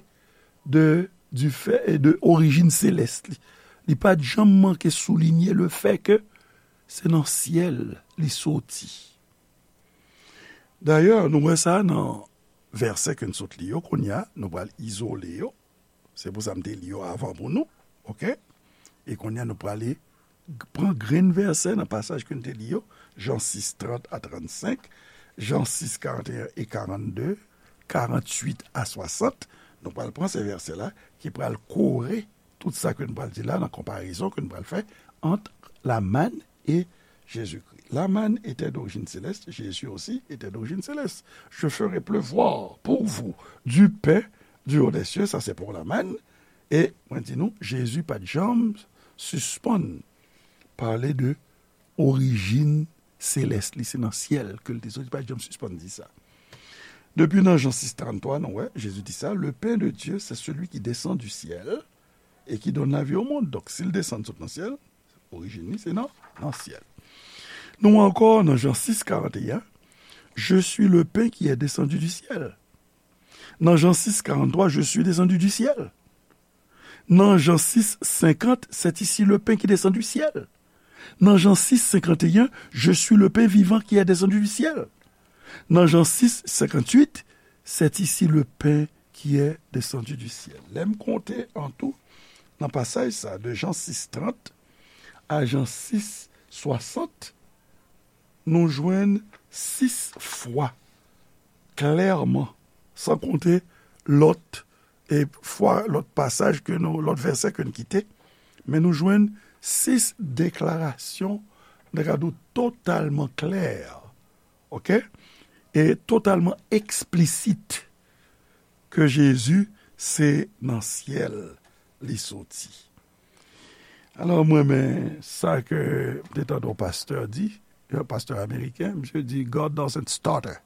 de, du fait, de orijin selès li. Li pa t janm manke soulinye le fait que se nan syèl li soti. Dayè, nou wè sa nan vèsè ke n sot li yo, kounye a, nou pral izole yo. Se pou sa m te li yo avan pou nou, oke? E kounye a, nou prale g- pran grenn vèsè nan pasaj ke n te li yo, Jan sis, trant a trannsenk, Jan sis, karanteyen e karannde, karannwit a swasant. Nou pral pran se vèsè la ki pral kore tout sa ke n pral di la nan konparezon ke n pral fè ant la manne et Jésus-Christ. La manne était d'origine céleste, Jésus aussi était d'origine céleste. Je ferai pleuvoir pour vous du pain du haut des cieux, sa se pou la manne. E mwen di nou, Jezi pa t janm sispann pale de orijin selès li, se nan syèl ke l te soti, li pa t janm sispann di sa. Depi nan Jan sis, tranntwa, nou wè, Jezi di sa, le pain de Dieu, c'est celui qui descend du ciel et qui donne la vie au monde. Donk, si l desann sot nan syèl, orijin li, se nan, nan syèl. Nou ankò nan Jan sis, karanteyen, je suis le pain qui est descendu du ciel. Nan Jan sis, karanntwa, je suis descendu du ciel. Nan Jan sis, senkant, c'est ici le pain qui descend du ciel. Nan Jan sis, senkant e yen, je suis le pain vivant qui est descendu du ciel. Nan Jan sis, senkant uit, c'est ici le pain qui est descendu du ciel. Lè m konte an tou, nan pasaj sa, de Jan sis, trant a Jan sis, swasant, nou jwenn sis fwa klèman, san konte lòt e fwa, lòt pasaj ke nou, lòt vèsè ke n kite, men nou jwenn sis deklarasyon, nou ka di w totalman klè, oke? E totalman eksplisit ke Jezi se nan syèl li soti. Alò, mwen renmen sa ke m te tande yon pastè di, yon pastè ameriken, misye di, God doesn't stutter.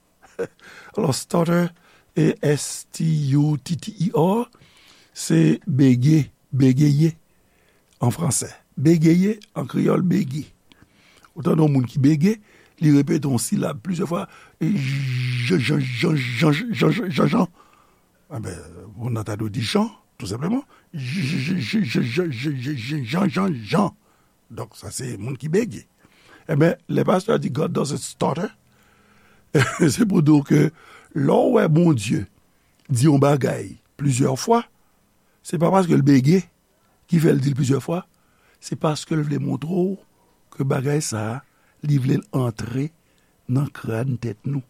Alò, stutter, E S T U T T E R, se bege, bégeye an fransè. Bégeye, an kreyòl, bege. Ou tande yon moun ki bege, li repete yon silab plizyè fwa, jan, jan, jan, jan, jan, jan, jan, jan. Enben, moun nan ta dwe di Jan, tou senpleman. J, j, j, j, j, j, j, j, Jan, Jan, Jan. Donk, sa se moun ki bege. Enben, lè pastè a di God doesn't stutter, se pou di w ke lè w wè Bondye di yon bagay plizyè fwa, se pa paske l bege ki fè l di l plizyè fwa, se paske l vle montre w ke bagay sa a, li vle l antre nan kràn tèt nou.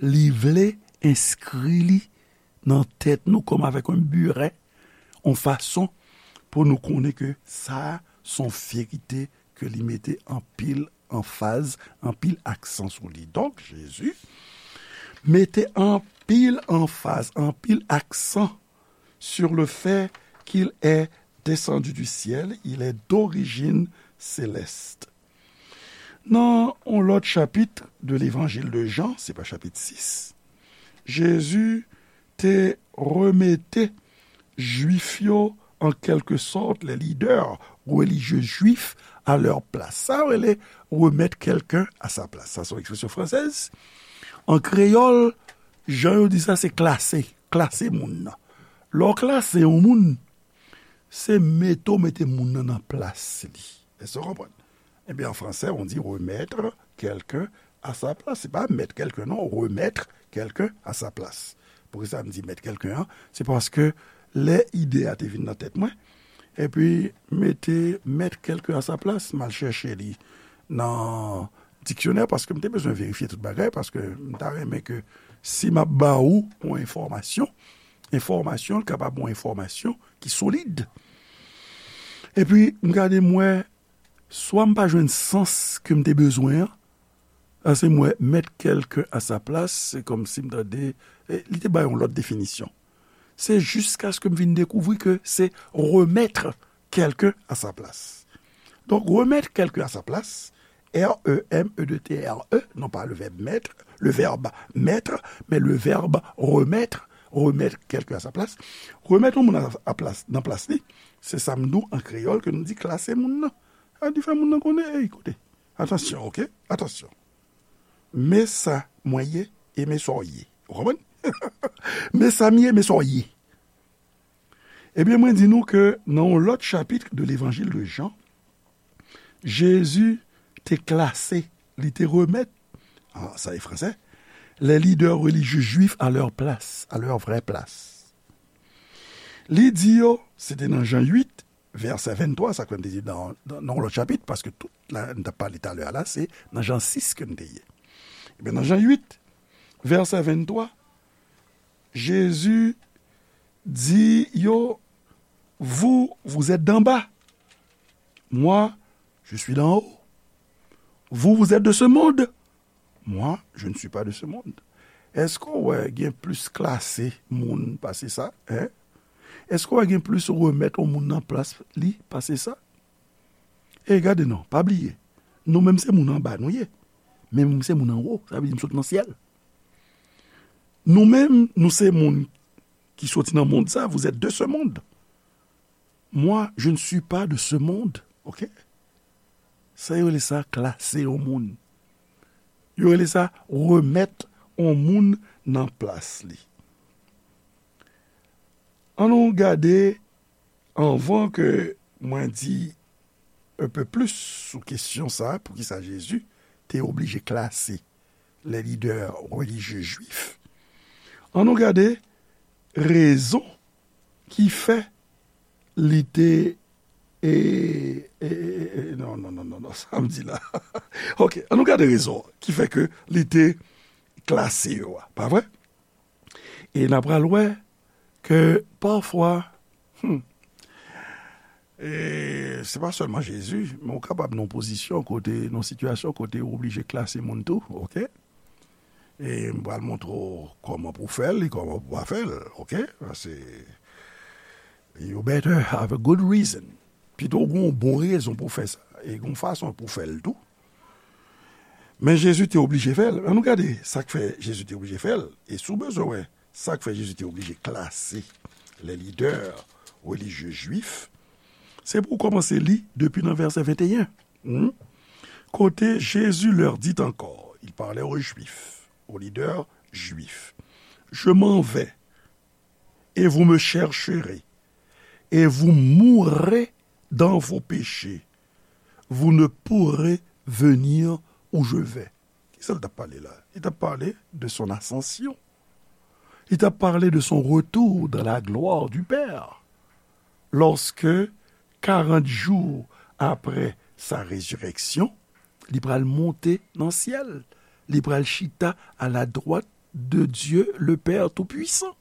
Li vle enskri li nan tèt nou kòm avèk yon biren, yon fason pou nou konnen ke sa a se yon verite ke li mete anpil anfaz, anpil aksan sou li. Donk, Jezi mete anpil anfaz, anpil aksan sur le fait qu'il est descendu du ciel, il est d'origine céleste. Nan yon lòt chapit de levanjil de Jan, se pa chapit sis, Jezi te remete Jwif yo, an kèlke sòt, les leaders religieux juifs à leur place. Sa yo rele remettre quelqu'un à sa place. Sa se yon ekspresyon fransèz. An kreyòl, jan yo di sa, se klase. Klase moun nan. Lè w klase yon moun, se mete w mete moun nan nan plas li. Èske w konprann? Ebyen, an fransè, on dit remettre quelqu'un à sa place. Se pa mettre quelqu'un, non, remettre quelqu'un à sa place. Poukisa m di mettre quelqu'un an? Se paske lè ide a te vin nan tèt mwen, epi mete mettre quelqu'un à sa place, m al chèche li nan diksyonè, paske m te bezwen verifye tout bagay, paske m ta renmen ke si m ap ba ou yon enfòmasyon, enfòmasyon, l kapab yon enfòmasyon ki solid. Epi, m gade, m wè, swa m pa jwenn sans ke m te bezwen an, paske m wè mettre quelqu'un à sa place, se kòmsi m tande, e, li te bay yon lòt definisyon. Se jiskaske m vin dekouvri ke se remettre quelqu'un à sa place. Donk, remettre quelqu'un à sa place, R E M E T T E R E, non pas le verbe mettre, le verbe mettre, mais le verbe remettre, remettre quelqu'un à sa place. Remèt yon moun a, a plas, nan plas li, se sa m di w an kreyòl ke nou di klase moun nan. Sa di fè moun nan konnen, ey, koute, atansyon, oke? Atansyon. Men sa mwen ye e men sa w ye. Ou konprann? Men sa m ye, men sa w ye. Ebyen, mwen di nou ke nan yon lòt chapit de Levanjil de Jan, Jezi te klase, li te remèt, an, sa e fransè, les leaders religieux juifs à leur place, à leur vraie place. Li di yo, se te nan Jan uit, vèsè venntwa, sa k fè m te di nan, nan, nan yon lòt chapit, paske tout la, n t ap pale talè a la, se nan Jan sis ke n te ye. Ebyen, nan Jan uit, vèsè venntwa, Jezi di yo, vous, vous êtes d'en bas. Moi, je suis d'en haut. Vous, vous êtes de ce monde. Moi, je ne suis pas de ce monde. Èske w wè gen plis klase moun pase sa, en? Èske w wè gen plis remèt yon moun nan plas li pase sa? E gade non, pa bliye, nou menm se moun anba nou ye, men nou se moun anwo, sa vle di nou sot nan syèl. Nou menm, nou se moun ki soti nan mond sa, vous êtes de ce monde. Moi, je ne suis pas de ce monde, oke? Sa yo rele sa klase yon moun. Yo rele sa remèt yon moun nan plas li. Ann nou gade, anvan ke mwen di un peu plus sou kesyon sa, poukisa Jezi te oblije klase les leaders religieux juifs, ann nou gade rezon ki fè li te, e, e, e, e, non, non, non, non, non, sa m di la. Oke, ann nou gade rezon ki fè ke li te klase yo a, pa vre? E n a pral wè ke pafwa, hmm, e se pa sèlman Jezi, men ou kapab nan yon pozisyon kote, nan yon sitiyasyon kote ou oblije klase moun tou, oke? E m pral montre w kòman pou w fè l e kòman pou w pa fè l, oke? Paske you better have a good reason. Pito w gen yon bon rezon pou w fè sa, e gen yon fason pou w fè l tou. Men Jezi te oblije fè l. Ann nou gade sa k fè Jezi te oblije fè l. E si w bezwen wè sa k fè Jezi te oblije klase les leaders religieux juifs, se pou w kòmanse li depi nan vèsè venteyen. Hmm? Kote Jésus leur dit encore, il parlait aux Juifs, aux leaders juifs, je m'en vais, et vous me chercherez, et vous mourrez dans vos péchés. Vous ne pourrez venir où je vais. Kisa l t ap pale la? Li t ap pale de son ascension. Li t ap pale de son retour dans la gloire du Père. Lorsque, karant jou apre sa rezirèksyon, li pral monte nan syèl. Li pral chita à la droite de Dieu, le Père Tout-Puissant.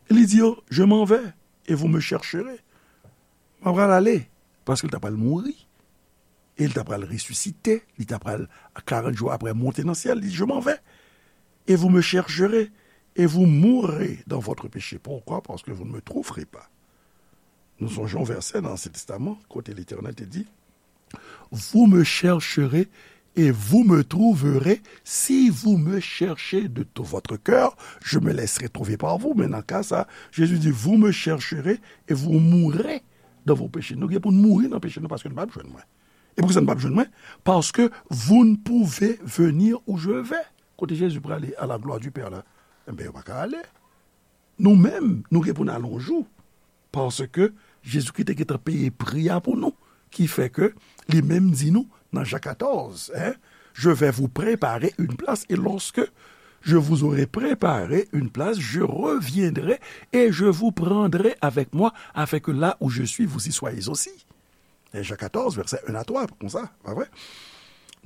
Li di yo, je m'en vais et vous me chercherez. Mwen pral ale, paske l ta pral mouri. E l ta pral resisite, li ta pral, karant jou apre, monte nan syèl, li di, je m'en vais, et vous me chercherez, et vous mourrez dans votre péché. Pourquoi? Parce que vous ne me trouverez pas. Nou sonje yon vèsè nan Ansyen Testaman, kote Letènèl te di, vous me chercherez et vous me trouverez, si vous me cherchez de tout votre cœur, je me laisserai trouver par vous. Men nan ka sa, Jezi di, vous me chercherez et vous mourrez dans vos péchés. Nou gen pou n mouri nan peche nou paske nou p ap jwenn mwen. E poukisa nou p ap jwenn mwen? Parce que vous ne pouvez venir où je vais. Kote Jezi prale à la gloire du Père la? Enben, yo pa ka ale. Nou menm, nou gen pou n al yon jou. Paske Jezikri te gentan peye pri a pou nou. Ki fè ke li menm di nou nan Jan katòz, hein, je vais vous préparer une place, et lorsque je vous aurai préparé une place, je reviendrai et je vous prendrai avec moi, afin que là où je suis, vous y soyez aussi. E Jan katòz, vèsè en a twa, konsa, pa vre?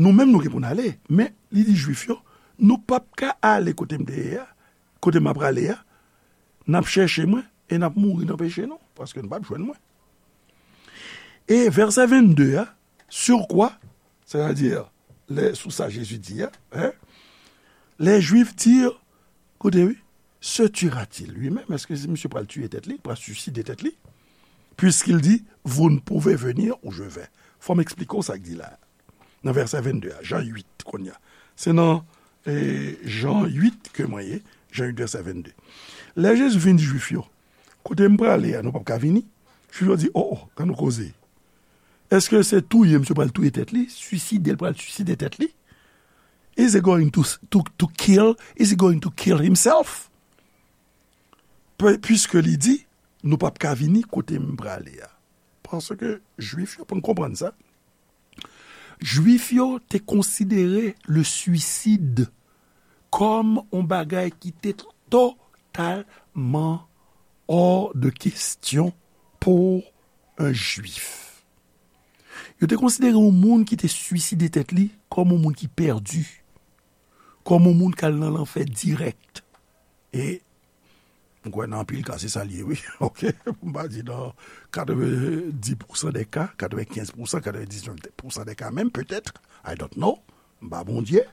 Nou menm, nou gen pou n ale, men li di Jwif yo, nou p ap ka ale kote m te ye a, kote m ap prale a, n ap chèche mwen, e n ap mouri nan peche nou, paske n p ap jwenn mwen. E vèsè vennde a, sur quoi, c'est-à-dire, les, sou sa Jezi di a, hein, les Juifs dirent, koute wi, se tuera-t-il lui-même? Èske misye pral tiye tèt li, pral siside tèt li? Puisqu'il dit, vous ne pouvez venir où je vais. Fò m eksplike w sa k di la. Nan vèsè vennde a, Jan uit, kounye a. Se nan, eh, Jan uit ke mwen ye, Jan uit vèsè vennde. Lè Jezi vin di Jwif yo, kote m prale a, nou p ap ka vini. Jwif yo di, o, o, kan nou koze. Èske se touye misye pral touye tèt li? Siside l pral siside tèt li? Is he going to, to, to kill? Is he going to kill himself? Pwiske li di, nou p ap ka vini kote m prale a. Paske Jwif yo, pou n konprann sa, Jwif yo te konsidere le suicide kòm yon bagay ki te totalman hors de question pou yon Jwif. Yo te konsidere yon moun ki te siside tèt li kòm yon moun ki pèdi, kòm yon moun k al nan lanfè dirèk. E m kwè nan anpil ka, se sa l ye, wi. Oke? M pa di nan katrevenndis pousan dè ka, katrevenkenz pousan, katrevendiznèf pousan dè ka menm, petèt. I don't know. M pa Bondye.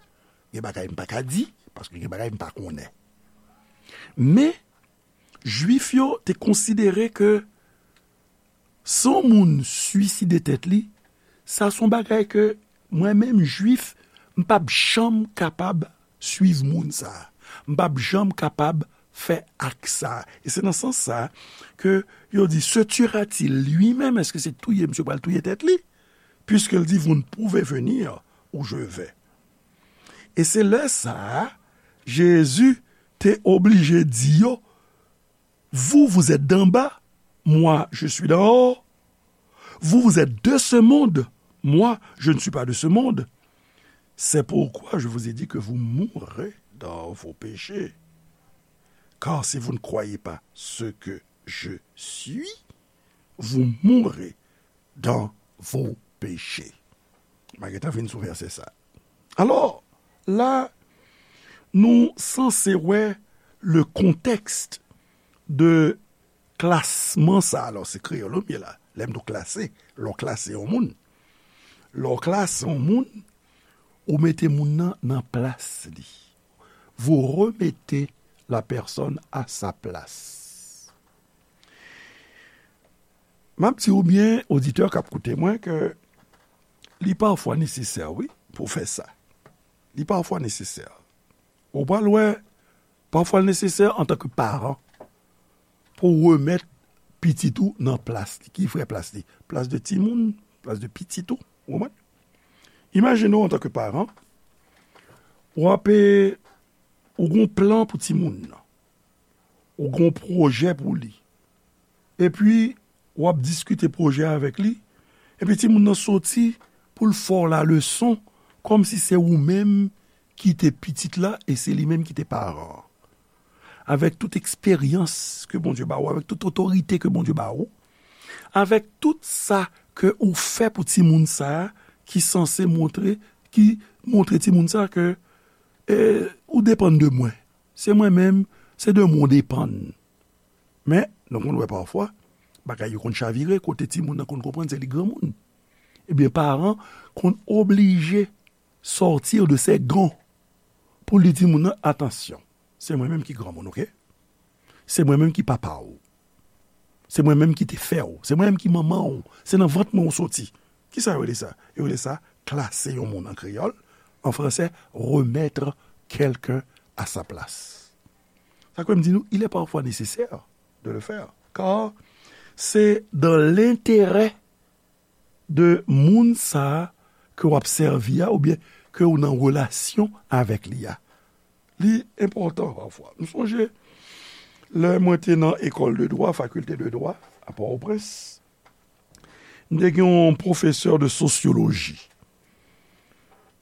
Gen bagay m pa ka di, paske gen bagay m pa konnen. Men, Jwif yo te konsidere ke si yon moun siside tèt li, sa se yon bagay ke mwen menm, Jwif, m p ap janm kapab swiv moun sa a. M p ap janm kapab fè ak sa a. E se nan sans sa a ke yo di, se tuera-t-il lui-même? Èske se touye misye pral touye tèt li? Puisqu'il dit, vous ne pouvez venir où je vais. E se lè sa a, Jezi te oblije di yo, vous, vous êtes d'en bas, moi, je suis d'en haut. Vous, vous êtes de ce monde, moi, je ne suis pas de ce monde. C'est pourquoi je vous ai dit que vous mourrez dans vos péchés. Car si vous ne croyez pas ce que je suis, vous mourrez dans vos péchés. M a gentan vin sou vèsè sa. Alò, la, nou sanse wè le contexte de klasman sa. Alò, se kreyòl ou m ye la. Lè m di w klase, lè w klase yon moun. Lè w klase yon moun, ou mete moun nan nan plas li. Vous remettez la personne à sa place. M ap di w byen, oditè k ap koute mwen, ke li pafwa nesesè, wi, pou w fè sa. Li pafwa nesesè. Ou pral wè, pafwa l nesesè antanke paran pou w remèt pitit ou nan plas li. Ki vrè plas li? Plas de timoun, plas de pitit ou. Ou konprann? Imajine w antanke paran, w ap, ou gen yon plan pou timoun nan. Ou gen yon pwojè pou li. Epi, w ap diskite pwojè a avèk li. Epi timoun nan soti pou l fè w laleson, kòmsi se ou menm ki te pitit la e se li menm ki te paran an. Avèk tout eksperyans ke Bondye ba ou, avèk tout otorite ke Bondye ba ou, avèk tout sa ke ou fè pou timoun sa a, ki sanse montre, ki montre timoun sa a ke, e, ou depann de mwen. Se mwen menm, se de mwen w depann. Men, nou konn wè pafwa, bagay yo konn chavire, kote timoun nan konn konprann se li granmoun. Ebyen, paran konn oblije sortir de ses gonds pou li di moun nan, atansyon, se mwen menm ki granmoun, oke? Se mwen menm ki papa w. Se mwen menm ki te fè w. Se mwen menm ki manman w. Se nan vant mwen w soti. Kisa yo rele sa? Yo rele sa klase yon moun an kreyòl. en français, remettre quelqu'un à sa place. Sa kwè m di nou, il est parfois nécessaire de le faire, car c'est dans l'intérêt de moun sa a ke w ap sèvi a, oubyen ke w nan relasyon avèk li a. Li enpòtan pafwa. M sonje, lè mwen te nan école de droit, faculté de droit, à Port-au-Prince, m te gen yon pwofesè de sosyoloji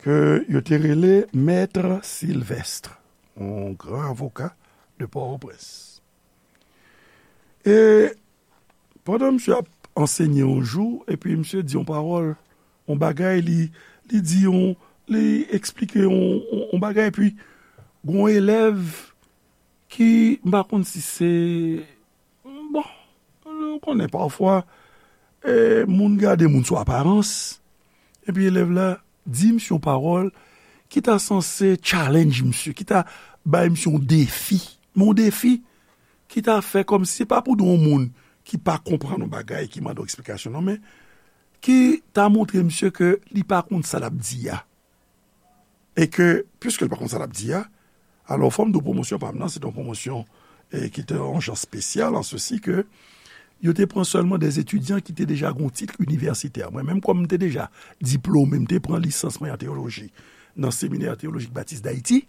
ke yo te rele Maître Sylvestre, yon gran avoka de Port-au-Prince. E pandan misye ap ansenye yon jou, epi misye di yon pawòl, yon bagay, li, li di yon, li eksplike yon, yon, yon bagay, epi gon elèv ki, m pa konn si se, bon, ou konnen pafwa, e, moun gade moun sou aparans, epi elèv la di misye yon pawòl ki ta sanse challenge misye, ki ta bay misye yon defi. Men yon defi ki ta fè kòmsi se pa pou di yon moun ki pa konprann yon bagay, ki mande yon eksplikasyon, non, men ki ta montre misye ke li pa konn sa l ap di a. E ke, piske l pa konn sa l ap di a, alò, fò m di w pwomosyon pa m nan, se te yon pwomosyon, e, ki te yon jan espesyal, an sesi ke yo te pran sèlman des étudiants ki te deja gen yon tit inivèsitè. Mwen menm, kòm m te deja diplome, m te pran lisans mwen an teyoloji nan Seminè Teyolojik Batis Dayiti.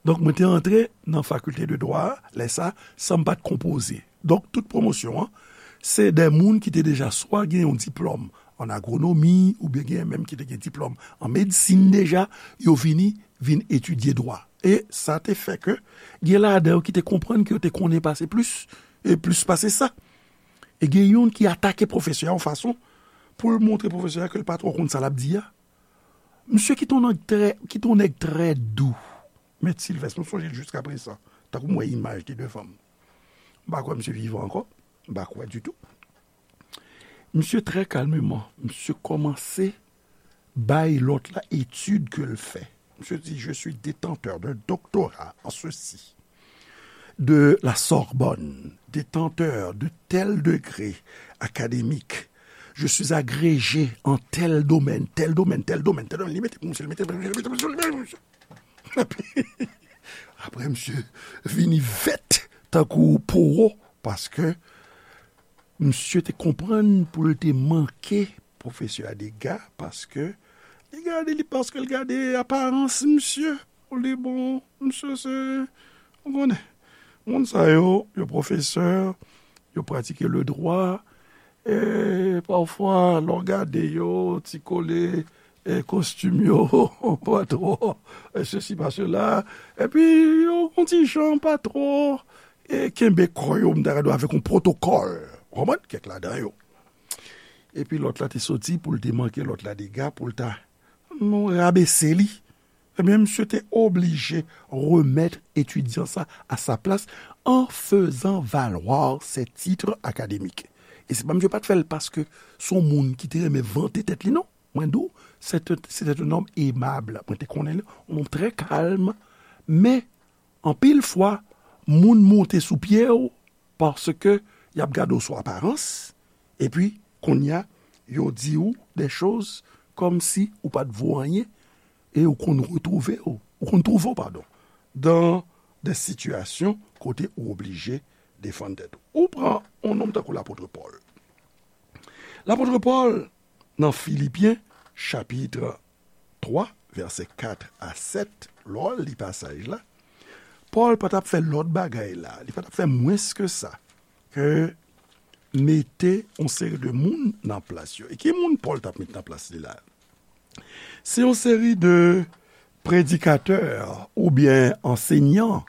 Donk, mwen te antre nan fakilte de dwa a, lè sa, san m pa t konpoze. Donk, tout pwomosyon an, se de moun ki te deja swa gen yon diplòm an agwonomi, oubyen gen menm ki te gen diplòm an medsin deja, yo vini, vin etidye dwa. E sa te fè ke gen ladan yo ki te konprann ke yo te konnen pase plis, e plis pase sa. E gen youn ki atake pwofesè a yon fason pou l montre pwofesè a ke l pa twò konn sa l ap di a. Misye ki t on nèg trè, ki t on nèg trè dou. Mèt Silvès, m sonje l jiskaprezan, tankou m wè imaj li devan m. M pa kwè misye vivan ankò, m pa kwè ditou. Misye trè kalmeman, misye kòmanse bay lòt la etid ke l fè. Misye di, je suis détenteur d'un doctorat en ceci, de la Sorbonne, détenteur de tel degré académique. Je suis agrégé en tel domaine, tel domaine, tel domaine, tel domaine. Li mete pou misye, li mete, li mete pou misye, li mete pou misye. Epi, apre, misye vini vèt tankou powo, paske misye te konprann pou l te manke pwofesè a dega, paske li gade li, paske l gade aparans misye, pou li bon, misye se, ou konnen, moun sa yo, yo pwofesè, yo pratike le dwa, e pafwa, lè w gade yo, ti kole, e kostim yo, pa twò, e sesi pa sela, epi yo, yon ti jan pa twò, e kenbe kò yo, m ta ka di w avèk yon pwotokòl. Ou konprann? Kèk ladan yo. Epi lòt la te soti pou l te manke lòt la dega, pou l ta, non, rabese li. Ebyen, misye te oblije remèt etidyan sa a sa plas en faisant valoir ses titres académiques. E se pa misye pa t fè l paske se yon moun ki te renmen vante tèt li, non. Mwen di w, se te, se te yon nonm emab. Mwen te konnen li, yon nonm trè kalm. Men, anpil fwa, moun monte sou pye w paske y ap gade w sou aparans. Epi, kounye a, yo di w de choz kòmsi ou pa t vo anyen e ou konn retwouve w, ou konn twouve w, padon, dan de sitiyasyon kote ou oblije defann tèt ou. Ou pran yon nonm tankou lapot Pòl. Lapot Pòl, nan Filipyen, chapit twa, vèsè kat a sèt, lè w li pasaj la, Pòl pa t ap fè lòt bagay la, li pa t ap fè mwens ke sa, ke mete yon seri de moun nan plas yo. E ki moun Pòl t ap met nan plas li la? Se yon seri de predikatè oubyen ansenyan,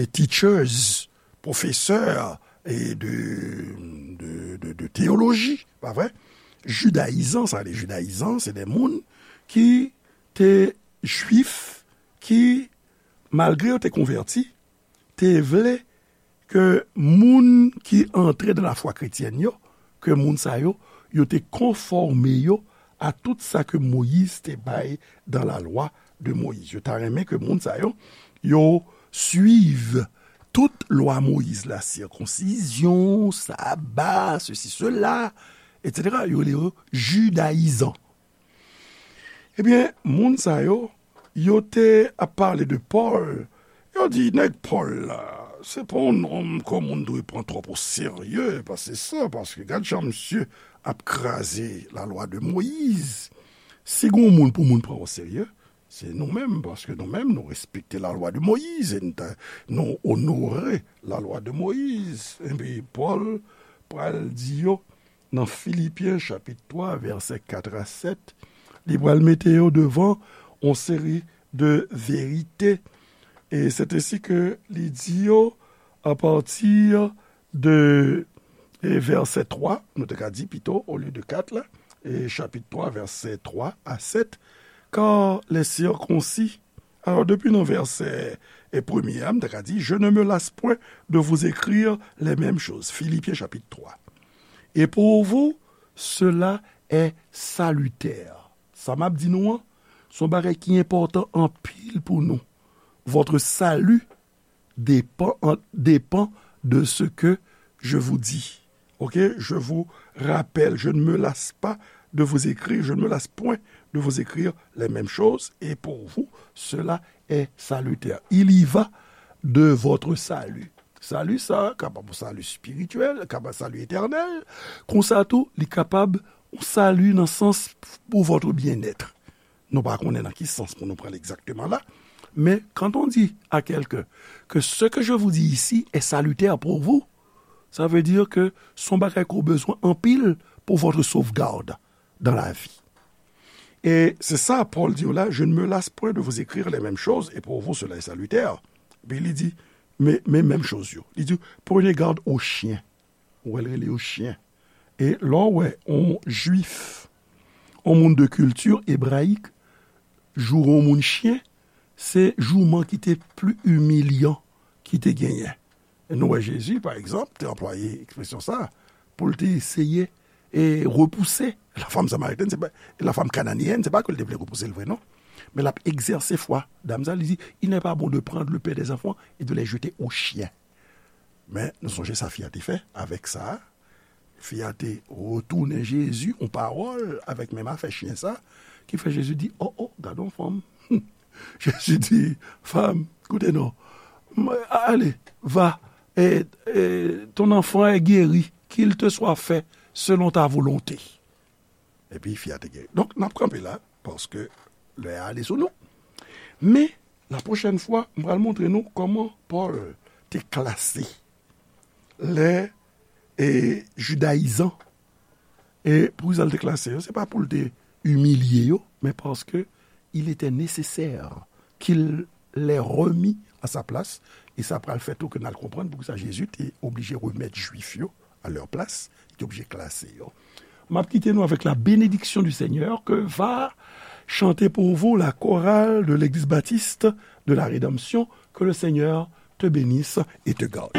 e teachers, pwofesè, e de, de, de, de teyoloji, pa vre? Jidayizan, sa vle di jidayizan, se de moun ki te jwif, ki, malgre yo te konvèti, te vle ke moun ki antre nan lafwa kretyèn yo, ke moun sa yo, yo te konfòme yo a tout sa ke Moyiz te bay dan la loi de Moïse. Yo ta renmen ke moun sa yo, yo swiv tout lwa Moyiz la, sikonsizyon, saba, sesi, sela, etsetera. Yo rele yo jidayizan. Ebyen, moun sa yo, Yo te ap pale de Pòl. Yo di, nèg Pòl la, se pa yon nonm ke moun dwe pran twòp o serye, paske sa, paske gad jan misye ap kraze lalwa de Moyiz. Si gen yon moun pou moun pran o serye, se nou menm, paske nou menm, nou respekte lalwa de Moyiz, e nou ta, nou onore lalwa de Moyiz. Epi Pòl pral di yo, nan Filipyen chapit twa, vèsè kat a sèt, li pral mete yo devan yon seri de verite. E se ensi ke li di yo, apati de, e, vèsè twa, nou te ka di pito, olye de kat la, e chapit twa, vèsè twa a sèt, car les circoncis. Alò, depi nan vèsè, e, premye a, m te ka di, je ne me lasse point de vous écrire les mêmes choses. Filipyen chapit twa. Et pour vous, cela est salutaire. Sa m ap di nou an, se yon bagay ki enpòtan anpil pou nou. Votre salut dépend, dépend de ce que je vous dis. Ok? Je vous rappelle, je ne me lasse pas de vous écrire, je ne me lasse point de vous écrire les mêmes choses, et pour vous, cela est salutaire. Il y va de votre salut. Sali sa kapab yon sali espirityèl, kapab sali etènèl. Konsa tou, li kapab yon sali nan sans pour votre bien-être. Nou pa konnen nan ki sans pou nou pral egzakteman la. Men, quand on dit à quelqu'un que ce que je vous dis ici est salutaire pour vous, ça veut dire que se yon bagay ke w bezwen anpil pour votre sauvegarde dans la vie. E se sa Pòl di yo la, je ne me lasse point de vous écrire les mêmes choses, et pour vous cela est salutaire. Epi li di, men, men menm choz yo. Li di, prenez garde aux chiens. Ou wè l rele yo chen. E lè w wè yon jwif, yon moun de kilti ebrayik, joure yon moun chen, se jouman ki te pli imilyan ki te genyen. E nou wè Jezi, pa egzanp, te anplwaye ekspresyon sa a pou l te eseye e repouse la fanm samaritèn, se pa, la fanm kananeyèn, se pa ke l te vle repouse l vre, non. Men l ap egzèse fwa dam sa, li di, il n'est pas bon de prendre le pain des enfants et de les jeter aux chiens. Men nou sonje sa fi a te fè avèk sa a. Fi a te retounen Jezi yon pawòl avèk menm afè chen sa, ki fè Jezi di, o, o, gade yon fanm. Jezi di, femme, koute non. M-, allez, va, et, et ton enfant est guéri, qu'il te soit fait selon ta volonté. Epi fi a te geri. Donk, n ap kanpe la, paske lè a ale sou nou. Men, la pwochèn fwa, m pral montre nou kòman Pòl te klase lè, e, jidayizan. E poukisa l te klase yo? Se pa pou l te imilye yo, men paske il était nécessaire qu'il les remît à sa place. E sa pral fè tou ke n al konprann poukisa Jezi te oblije remèt jwif yo à leur place, li te oblije klase yo. M ap kite nou avec la bénédiction du Seigneur que va chanter pour vous la chorale de l'Église Baptiste de la Rédemption. Que le Seigneur te bénisse et te garde.